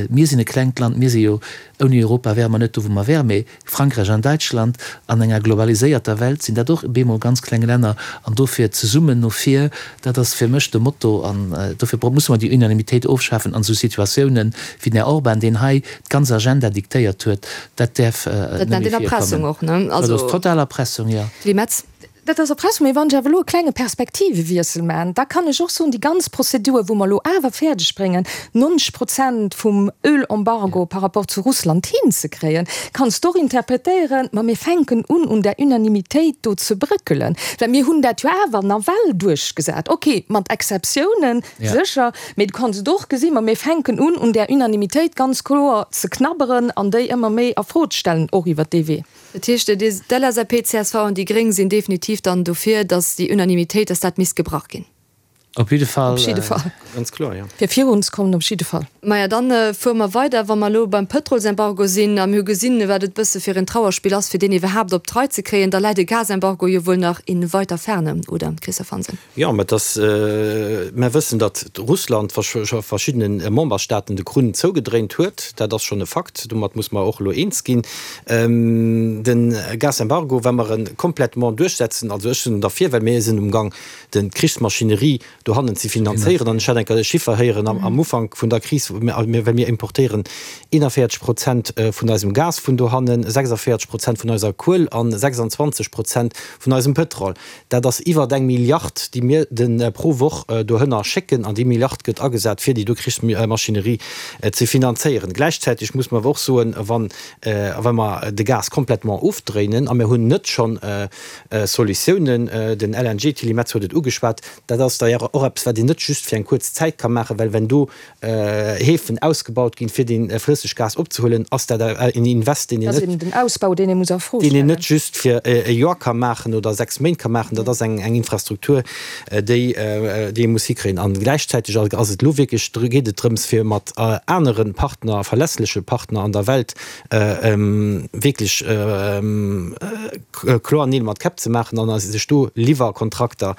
mir sinn e klengt Land, mir si jo, ouni Europa wäre mer net do, wou mer wären. Mee Frankräich an Däitschland, an enger globaliséierter Welt sinn dat och bemol ganz kleng Länner, an dofir zesummen no vir, dat ass fir mech de Motto. An dofir musse mer déi Unanimitéit ofschafen an esou Situatiounen wéi den Här Orban, deen hei d'ganz Agenda diktéiert huet, dat däerf net méi virkommen. Dat ass total Erpressung, jo. Tilly Metz. Dat ass Erpressung. Mee wann ech awer elo e klenge Perspektivewiessel maachen, da kann ech och soen, déi ganz Prozedur, wou mer elo awer fäerdeg bréngen, 90 Prozent vum Ölembargo par rapport zu Russland hinzekréien, kanns de och interpretéieren, ma mir fänken un, un där Unanimitéit do ze brëckelen, well mir hunn dat jo awer nawell duerchgesat. Okay, mat Exceptiounen, sécher, mee du kanns et och gesinn, ma mir fänken un, un där Unanimitéit ganz kloer ze knabberen an déi ëmmer méi a Fro ze stellen, och iwwert dee Wee. Dat heescht, d'LSAP, csv an déi Gréng sinn definitiv dann dofir, datt déi Unanimitéit, datt dat misst gebrach ginn. Op jidde Fall. Op jidde Fall. Ganz kloer, jo. Fir virunzekommen, op jidde Fall. Maja, dann fuere mer weider, wa mer elo beim Pëtrolsembargo sinn a mir hu gesinn, wat et bësse fir en Trauerspill ass, fir deen iwwerhaapt op d'Rei ze kréien, da läit e Gasembargo jo wuel nach in weiter Ferne, oder, Christophe Hansen? Jo, mä et ass, mer wëssen, datt Russland scho verschiddene Memberstaaten de Krunn zougedréint huet. Dat ass schonn e Fakt. Domat muss mer och elo eens ginn. De Gasembargo, wa mer e complètement duerchsetzen, also ech sinn derfir, well mir sinn umgang d'Krichsmaschinerie dohannen ze finanzéieren. An ech hat eng Kéier e Chiffer héieren am Ufank vun der Kris, well mir importéieren 41 Prozent vun eisem Gas vun dohannen, 46 Prozent vun eiser Kuel an 26 Prozent vun eisem Pëtrol. Dat ass iwwert eng Milliard, déi mir de pro Woch dohënner schécken, an déi Milliard gëtt agesat, fir déi do Krichsmaschinerie ze finanzéieren. Gläichzäiteg muss mer awer och soen, wann wa mer de Gas complètement ofdréinen, a mir hunn net schonn Solutiounen, den LNG, d'Tilly Metz huet et ugeschwat, dat ass d'ailleurs. och eppes, wat een net just fir eng kuerz Zäit ka maachen, well wenn do Häfen ausgebaut ginn, fir dee Flësseggas opzehuelen, ass dat en Invest, deen een net, den Ausbau, deen ee muss a Fro deen een net just fir e Joer ka maachen oder 6 Méint ka maachen. Dat ass eng Infrastruktur, déi déi ee muss hikréien. A gläichzäiteg ass et elo wierklech, geet et drëms, fir mat anere Partner, verlässleche Partner an der Welt wierklech kloer Neel mat Käpp ze maachen an sech do Liwwerkontrakter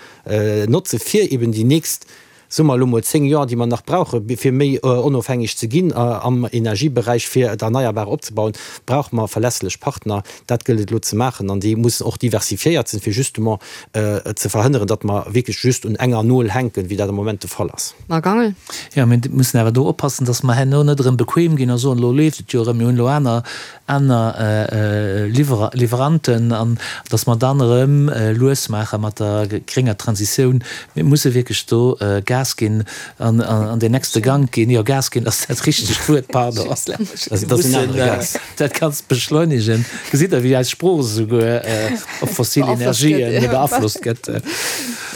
notze fir eben déi nächst, soe mer elo mol 10 Joer, déi mer nach brauche fir méi onofhängeg ze ginn am Energieberäich, fir d'Erneierbar opzebauen, brauche mer verlässlech Partner. Dat gëllt et elo ze maachen an déi mussen och diversifiéiert sinn, fir justement ze verhënneren, datt mer wierklech just un enger Nol hänken, wéi dat am Moment de Fall ass. Marc Angel. Jo, mir mussen awer do oppassen, datt mer herno net erëm bequem ginn a soen, elo leeft et jo erëm, mir hunn elo aner aner Liwweranten an datt mer dann erëm lues maache mat der grénger Transitioun. Mir musse wierklech do Gas ginn an an den nächste Gank ginn. Jo, Gas ginn ass dat richtegt Wuert, pardon. Mir mussen dat Ganzt beschleunegen. Gesitt Der, wéi eis Sprooch esouguer op fossil Energien beaflosst gëtt?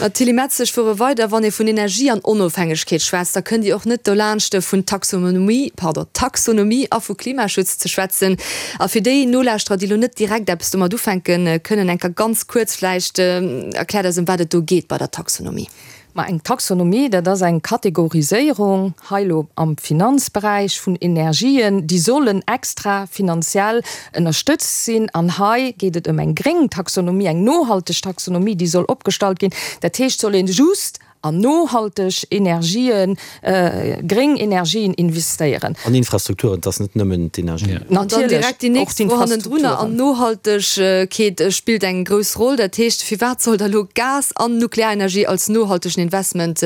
D'Tilly Metz, Ech fuere weider, Wann ee vun Energie an Onofhängegkeet schwätzt, da kënnt Dir och net dolaanscht vun Taxonomie, pardon, Taxonomie a vu Klimaschutz ze schwätzen. A fir déi Nolauschterer, déi elo net direkt eppes domat ufänke kënnen, eng Kéier ganz kuerz vläicht, erkläert eis ëm wat et do geet bei der Taxonomie. Ma eng Taxonomie, dat ass eng Kategoriséierung, hei elo am Finanzberäich, vun Energien, déi sollen extra finanziell ënnerstëtzt sinn. An hei geet et ëm eng gréng Taxonomie, eng nohalteg Taxonomie, déi soll opgestallt ginn. Dat heescht, soll ee just an nohalteg Energien, gréng Energien investéieren. An Infrastrukturen, et ass net nëmmen d'Energie. An dann direkt déi nächst Fro hannendrunner, an Nohaltegkeet spillt eng grouss Roll. Dat heescht, firwat soll da lo Gas an Nuklearenergie als nohaltegen Investment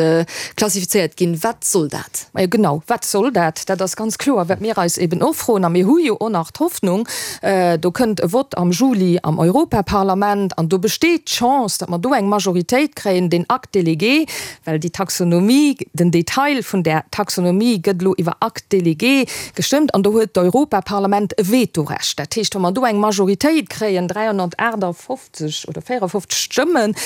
klassifizéiert ginn? Wat soll dat? Majo genau, wat soll dat? Dat ass ganz kloer, wat mir eis eben och froen. A mir hu jo och nach d'Hoffnung, do kënnt e Vott am Juli am Europaparlament an do besteet d'Chance, datt mer do eng Majoritéit kréien, deen Acte délégué, Well déi Taxonomie, den Detail vun där Taxonomie gëtt elo iwwer Acte délégué gestëmmt an do huet d'Europaparlament e Vetorecht. Dat heescht, wa mer do eng Majoritéit kréien, 358 oder 54 Stëmmen,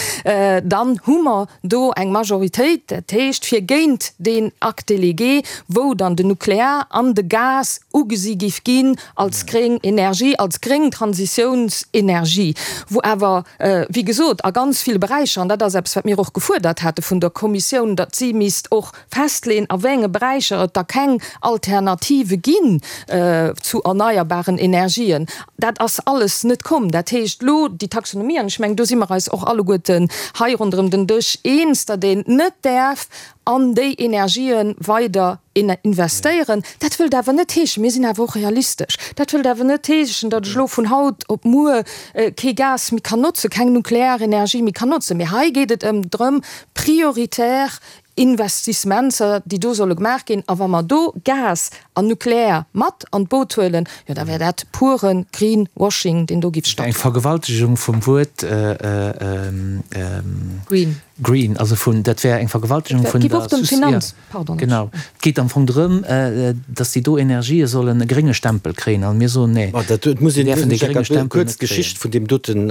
dann hu mer do eng Majoritéit, dat heescht fir géint deen Acte délégué, wou dann den Nuklear an de Gas ugesi giff ginn als gréng Energie, als gréng Transitiounsenergie, wou awer, wéi gesot, a ganz ville Beräicher, an dat ass eppes, wat mir och gefuerdert hate vun der Kommissioun, datt si misst och festleeën, a wéi enge Beräicher et da keng Alternative ginn zu erneierbaren Energien. Dat ass alles net komm. Dat heescht elo déi Taxonomie, an ech mengen, do si mer eis och alleguerten hei ronderëm den Dësch eens, datt een net däerf an déi Energië weider investéieren. Dat wëllt awer net heeschen, mir sinn awer och realistesch, dat wëllt awer net heeschen, datt ech elo vun haut op muer kee Gas méi kann notzen, keng nuklear Energie méi kann notzen. Mee hei geet et ëm drëm, prioritär Investissementser, déi do solle gemaach ginn. A wa mer do Gas an Nuklear mat an d'Boot huelen, jo da wär dat pure Greenwashing, deen do giff stattfannen. Eng Vergewaltegung vum Wuert Green. Green, also vun, dat wär eng Vergewaltegung vun der Sus, jo, genau. Et geet am Fong drëm, datt déi do Energië sollen e grénge Stempel kréien, an mir soen, nee, Ma dat muss een, däerfen dee grénge Stempel kuerz net kréien. d'Geschicht vun deem doten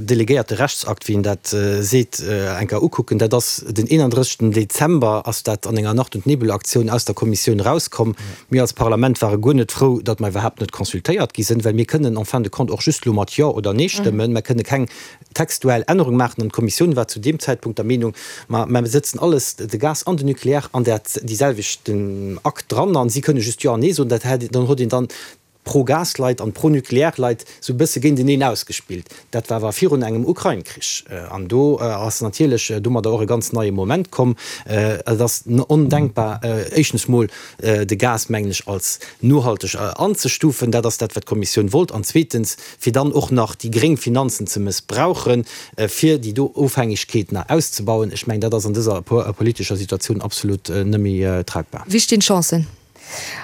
delegéierte Rechtsakt, wéi een dat seet, eng Kéier ukucken. Dat ass den 31. Dezember ass dat an enger Nacht und Nebel-Aktioun aus der Kommissioun erauskomm. Mir als Parlament ware guer net frou, datt mer iwwerhaapt net consultéiert gi sinn, well mir kënnen en fin de compte och just elo mat Jo oder Nee stëmmen. Mer kënne keng textuell Ännerung maachen an d'Kommissioun war zu deem Zäitpunkt der Meenung, ma mer sëtzen alles, de Gas an den Nucléaire, an dat déi selwechten Akt dran an si kënne just Jo an Nee soen. Dat hätt, dann huet een dann d'Pro-Gas-Leit an d'Pro-Nucléaire-Leit esou e bësse géinteneen ausgespillt. Dat war awer virun engem Ukrain-Krich an do ass natierlech domadder och e ganz neie Moment komm. Et ass ondenkbar, éischtens mol de Gas, mengen ech, als nohalteg anzestufen, dat ass dat, wat d'Kommissioun wollt, an zweetens, fir dann och nach déi gréng Finanzen ze mëssbrauchen, fir déi do Ofhängegkeet nach auszebauen, ech mengen, dat ass an dëser politescher Situatioun absolut net méi tragbar. Wéi stinn d'Chancen?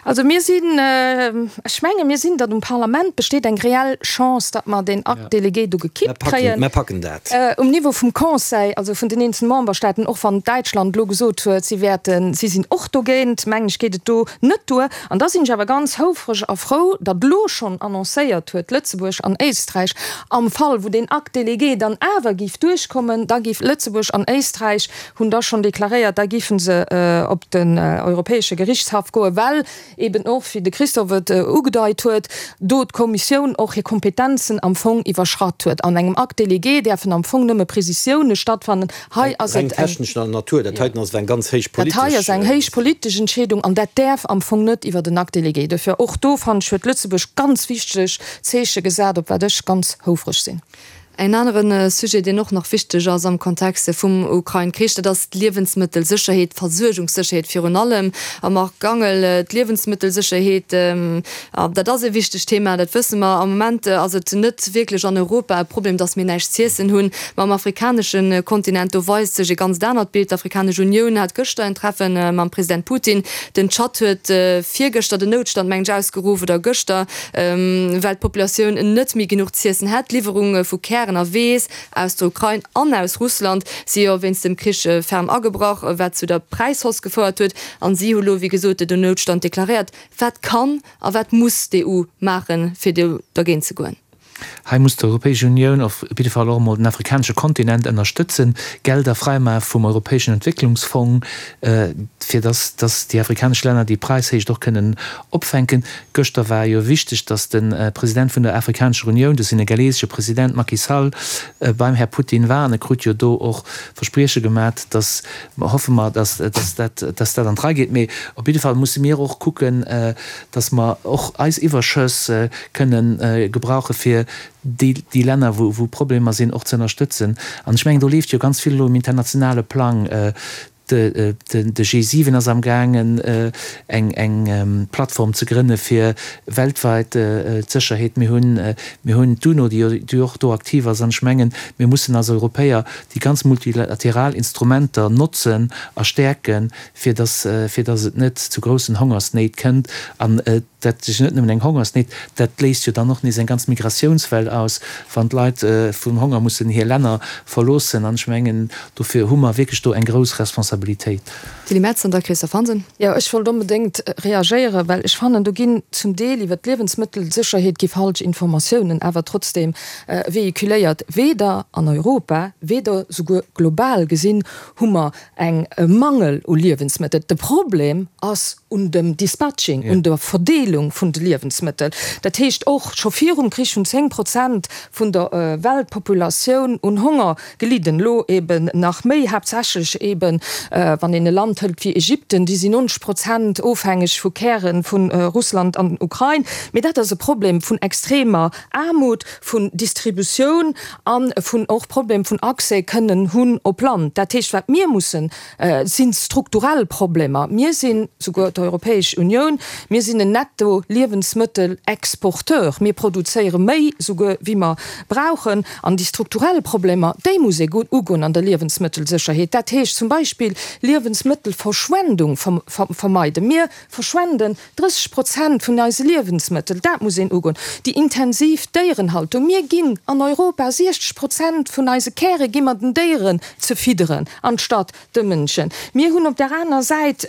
Also mir sinn, ech menge mir sinn, datt um Parlament besteet eng reell Chance, datt mer deen Acte délégué do gekippt kréien. Mer packen dat. Um Niveau vum Conseil, also vun den eenzelne Memberstaaten, och wann Däitschland elo gesot huet, si wäerten, si sinn och dogéint, mengen ech, geet et do net duer. An da sinn ech awer ganz houfreg a frou, datt elo schonn annoncéiert huet, Lëtzebuerg an Éisträich, am Fall wou deen Acte délégué dann awer géif duerchkommen, da géif Lëtzebuerg an Éisträich hunn da schonn deklaréiert, da géife se op den Europäesche Gerichtshaff goen, well eben och, wéi de Christophe et ugedeit huet, do d'Kommissioun och hir Kompetenzen am Fong iwwerschratt huet. An engem Acte délégué däerfen am Fong nëmme Prezisiounen stattfannen. Hei ass et eng. Reng technescher Natur. Dat heiten ass awer eng ganz héich politesch. Dat hei ass eng héich politesch Entscheedung an dat däerf am Fong net iwwert en Acte délégué. Dofir och do, fannen ech, huet Lëtzebuerg ganz wichteg Zeeche gesat, op wat ech ganz houfreg sinn. En anere Sujet, deen och nach wichteg ass am Kontext vum Ukrain-Krich, dat ass d'Liewensmëttelsécherheet, d'Versuergungssécherheet virun allem. A Marc Gangel, d'Liewensmëttelsécherheet, dat ass e wichtegt Thema, dat wësse mer. Am Moment ass et net wierklech an Europa e Problem, datt mir näischt z'iessen hunn. Ma am afrikanesche Kontinent, do weist sech e ganzt anert Bild. D'Afrikanesch Unioun hat gëschter en Treffe mam President Putin. Den Tschad huet virgëschter den Noutstand, mengen ech, ausgeruff, oder gëschter. Well d'Populatioun net méi genuch z'iessen hätt. D'Liwwerunge vu Kären a Weess aus der Ukrain an aus Russland si jo wéinst dem Krich ferm agebrach, wat zu der Präishausse gefouert huet. An si hu lo, wéi gesot, den Noutstand deklaréiert. Wat kann a wat muss d'EU maachen, fir do dergéint ze goen? Hei muss d'Europäesch Unioun op jidde Fall och emol den afrikanesche Kontinent ënnerstëtzen, Gelder fräimache vum Europäeschen Entwécklungsfong, fir dass dass déi afrikanesch Länner déi Präishéicht och kënnen opfänken. Gëschter war jo wichteg, dass de President vun der Afrikanescher Unioun, de senegalesesche President Macky Sall, beim Här Putin war an e krut jo do och Versprieche gemat, dass, hoffe mer, dass dass dat dass dat an d'Rei geet. Mee op jidde Fall musse mir och kucken, dass mer och eis Iwwerschëss kënnen gebrauche fir déi déi Länner, wou wou Problemer sinn, och ze ënnerstëtzen. An ech mengen, do leeft jo ganz vill elo um internationale Plang. De G7 ass amgaangen, eng eng Plattform ze grënne fir weltweit d'Sécherheet. Mir hunn mir hunn d'UNO, déi déi och do aktiv ass. An ech mengen, mir mussen als Europäer déi ganz multilateral Instrumenter notzen a stäerken, fir dass fir dass et net zu groussen Hongersnéit kënnt. An dat ass jo net nëmmen eng Hongersnéit, dat léist jo dann och nees eng ganz Migratiounswell aus, wann d'Leit vum Honger mussen hir Länner verloossen. An ech mengen, dofir hu mer wierklech do eng grouss Responsabilitéit. Tilly Metz an da Christophe Hansen. Jo, ech wollt onbedéngt reagéieren, well ech fannen, do ginn zum Deel iwwert d'Liewensmëttelsécherheet gi falsch Informatiounen awer trotzdeem véhiculéiert. Weder an Europa, weder souguer global gesinn hu mer eng e Mangel u Liewensmëttel. De Problem ass un dem Dispatching, un der Verdeelung vun de Liewensmëttel. Dat heescht och, scho virum Krich hunn 10 Prozent vun der Weltpopulatioun un Honger gelidden. Elo eben nach méi, haaptsächlech eben, wann een e Land hëlt wéi Ägypten, déi sinn 90 Prozent ofhängeg vu Käre vu Russland an Ukrain. Mee dat ass e Problem vun extremer Aarmut, vun Distributioun a vun och Problem vun Accès kënnen hunn op Land. Dat heescht, wat mir mussen, si strukturell Problemer. Mir sinn, souguer d'Europäesch Unioun, mir sinn en Netto-Liewensmëttelexporteur. Mir produzéiere méi souguer wéi mer brauchen. An déi strukturell Problemer, déi muss ee ugoen an der Liewensmëttelsécherheet. Dat heescht zum Beispill Liewensmëttelverschwendung vermeiden. Mir verschwenden 30 Prozent vun eise Liewensmëttel, dat muss een ugoen. Déi intensiv Déierenhaltung, mir ginn an Europa 60 Prozent vun eise Käre gi mer den Déieren ze fidderen, anstatt de Mënschen. Mir hunn op där aner Säit,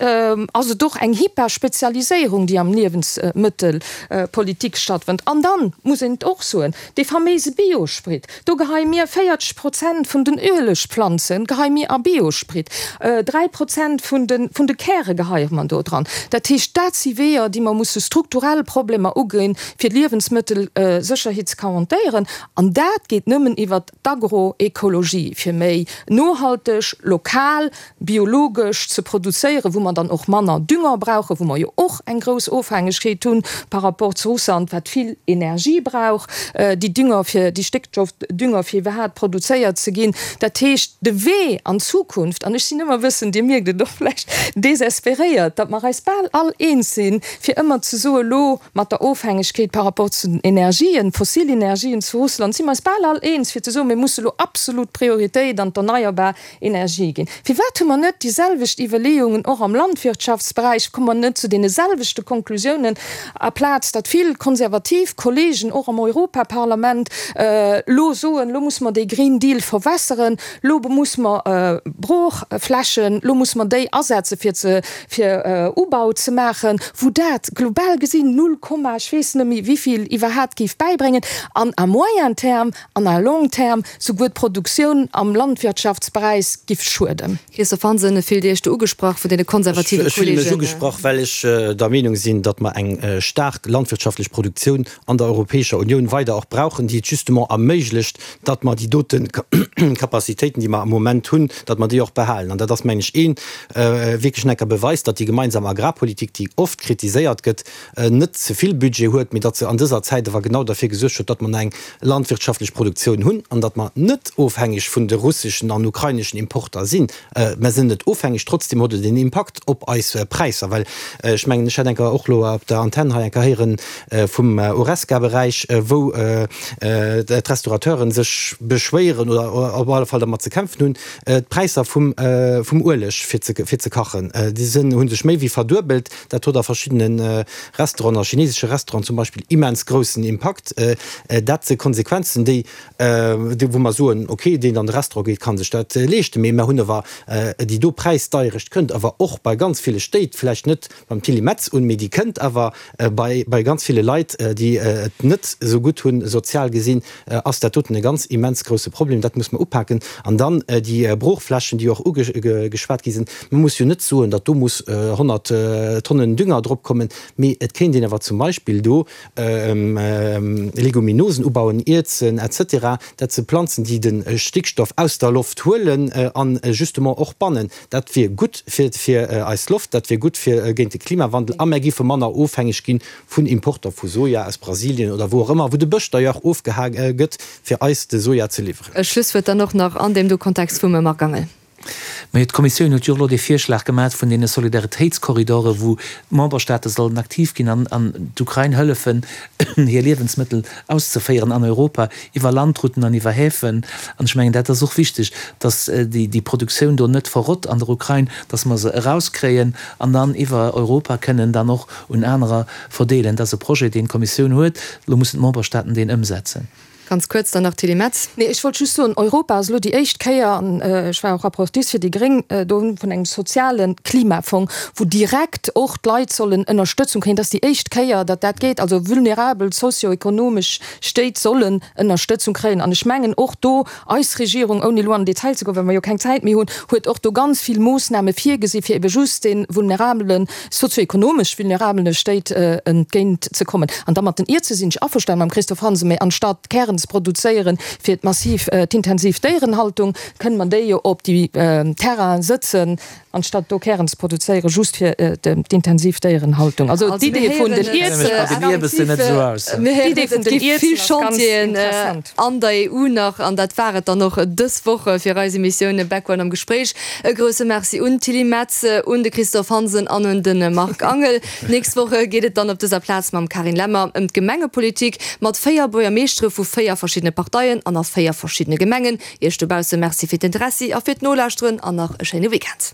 ass et och eng Hyperspezialiséierung, déi am Liewensmëttelpolitik stattfënnt. An dann muss een et och soen, dee faméise Biosprit, Do geheie mir 40 Prozent vun den Uelegplanze geheie mir a Biosprit, 3 Prozent vun de vun de Käre geheie mer do dran. Dat heescht, dat si Weeër, déi mer musse strukturell Problemer uginn, fir d'Liewensmëttelsécherheet ze garantéieren. An dat geet nëmmen iwwert d'Agroekologie, fir méi nohalteg, lokal, biologesch ze produzéieren, wou mer dann och manner Dünger brauchen, wou mer jo och eng grouss Ofhängegkeet hunn par rapport zu Russland, wat vill Energie brauch, déi Dünger fir, déi Stéckstoffdünger fir iwwerhaapt produzéiert ze ginn. Dat heescht, de Wee an d'Zukunft, an ech sinn ëmmer e bëssen, Dir mierkt et och vläicht, désespéréiert, datt mer eis bal all eens sinn, fir ëmmer ze soen, elo mat der Ofhängegkeet par rapport zu den Energien, fossil Energien zu Russland, si mer eis bal all eens, fir ze soen, mir musse elo absolut Prioritéit an d'erneierbar Energie ginn. Firwat hu mer net déi selwecht Iwwerleeungen och am Landwirtschaftsberäich? Komme mer net zu deene selwechte Konklusiounen, aplaz datt vill konservativ Kollegen och am Europaparlament elo soen, elo musse mer dee Green Deal verwässeren, elo musse mer Broochflächen, elo musse mer déi asetze fir ze fir Ubau ze maachen, wou dat global gesinn null Komma ech weess net méi wéivill iwwerhaapt géif bäibréngen an à moyen terme an à long terme souguer d'Produktioun am Landwirtschaftsberäich giff schueden. Christophe Hansen, Fillt Dir Iech do ugesprach vun deene konservative Ech fille mech Kollegen? ugesprach, well ech der Meenung sinn, datt mer eng staark landwirtschaftlech Produktioun an der Europäescher Unioun weider och brauchen, déi et justement erméiglecht, datt mer déi dote Capacitéiten, déi mer am Moment hunn, datt mer déi och behalen. An dat ass, mengen ech, ee wierklech necker Beweis, datt déi gemeinsam Agrarpolitik, déi oft kritiséiert gëtt, net ze vill Budget huet, mee datt se an dëser Zäit awer genau derfir gesuergt huet, datt mer nach eng landwirtschaftlech Produktioun hunn an datt mer net ofhängeg vun de russeschen an ukraineschen Importer sinn. Mer sinn net ofhängeg, trotzdem huet et en Impakt op eis Präisser, well ech mengen, ech hat eng Kéier och elo op der Antenn hei eng Kéier héieren vum Horesca-Beräich, wou d'Restaurateuren sech beschwéieren oder op alle Fall dermat ze kämpfen hunn, d'Präisser vum Ueleg fir ze kachen, déi sinn, hu sech méi wéi verduebelt. Dat huet a verschiddene Restauranten, a chinesesche Restauranten zum Beispill, immens groussen Impakt. Dat si Konsequenzen, déi, wou mer soen, okay, deen an de Restaurant geet, ka sech dat leeschten. Mee mer hunn awer déi do Präisdeierecht kënnt awer och bei ganz ville Stéit, vläicht net beim Tilly Metz un, mee déi kënnt awer bei ganz ville Leit, déi et net esou gutt hunn, sozial gesinn, ass dat doten e ganz immens grousse Problem. Dat muss mer upaken. An dann déi Broochflächen, déi och ugeschwat gi sinn. Mir muss jo net soen, datt do muss 100 Tonnen Dünger drop kommen, mee et kéint een awer zum Beispill do Leguminosen ubauen, Ierzen et cetera. Dat si Planzen, déi de Stickstoff aus der Loft huelen a justement och bannen. Dat wier gutt fir eis Loft, dat wier gutt fir géint de Klimawandel a mär géife manner ofhängeg gi vun Importer vu Soja aus Brasilien oder wou och ëmmer, wou de Bësch d'ailleurs ofgeha gëtt, fir eis de Soja ze liwweren. E Schlusswuert dann och nach an deem do Kontext vum Marc Angel. Majo, d'Kommissioun huet jo och elo dee Virschlag gemaach vun deene Solidaritéitskorridore wou d'Memberstaate sollen aktiv ginn an an d'Ukrain hëllefen, hir Liewensmëttel auszeféieren an Europa iwwer Landrouten an iwwer Häfen. An ech mengen, dat ass och wichteg, datt déi déi Produktioun do net verrott an der Ukrain, datt mer se erauskréien an dann iwwer Europa kënnen dann och un anerer verdeelen. Dat ass e Projet, deen d'Kommissioun huet. Elo mussen d'Memberstaaten deen ëmsetzen. Ganz kuerz dann nach, Tilly Metz. Nee, ech wollt just soen, Europa ass elo déi éischt Kéier, an ech war och Rapportrice fir déi Gréng do, vun engem soziale Klimafong, wou direkt och d'Leit sollen Ënnerstëtzung kréien. Dat ass déi éischt Kéier, datt dat geet. Also vulnerabel sozioekonomesch Stéit sollen Ënnerstëtzung kréien. An ech mengen och do, Eis Regierung, ouni elo an den Detail ze goen, well mer jo keng Zäit méi hunn, huet och do ganz vill Moossname virgesi fir ebe just de vulnerabelen, sozioekonomesch vulnerabele Stéit entgéint ze kommen. An da mat den Ierze sinn ech averstanen mam Christophe Hansen, mä anstatt Kären ze produzéieren fir d'massiv, d'intensiv Déierenhaltung, kënne mer déi jo op déi Terrainen sëtzen, Anstatt do Kären ze produzéieren just fir d'intensiv Déierenhaltung. Also d'Idee vun den Ierzen vill Chantieren an der EU nach. An dat war et dann och dës Woch fir eis Emissioun Background am Gespréich. E grousse Merci un d'Tilly Metz, un de Christophe Hansen an un de Marc Angel. D'nächst Woch geet et dann op dëser Plaz mam Carine Lemmer ëm d'Gemengepolitik mat 4 Buergermeeschtere vu 4 verschiddene Parteien an a 4 verschiddene Gemengen. Iech dobausse Merci fir d'Interessi a fir d'Nolauschteren an nach e schéine Weekend.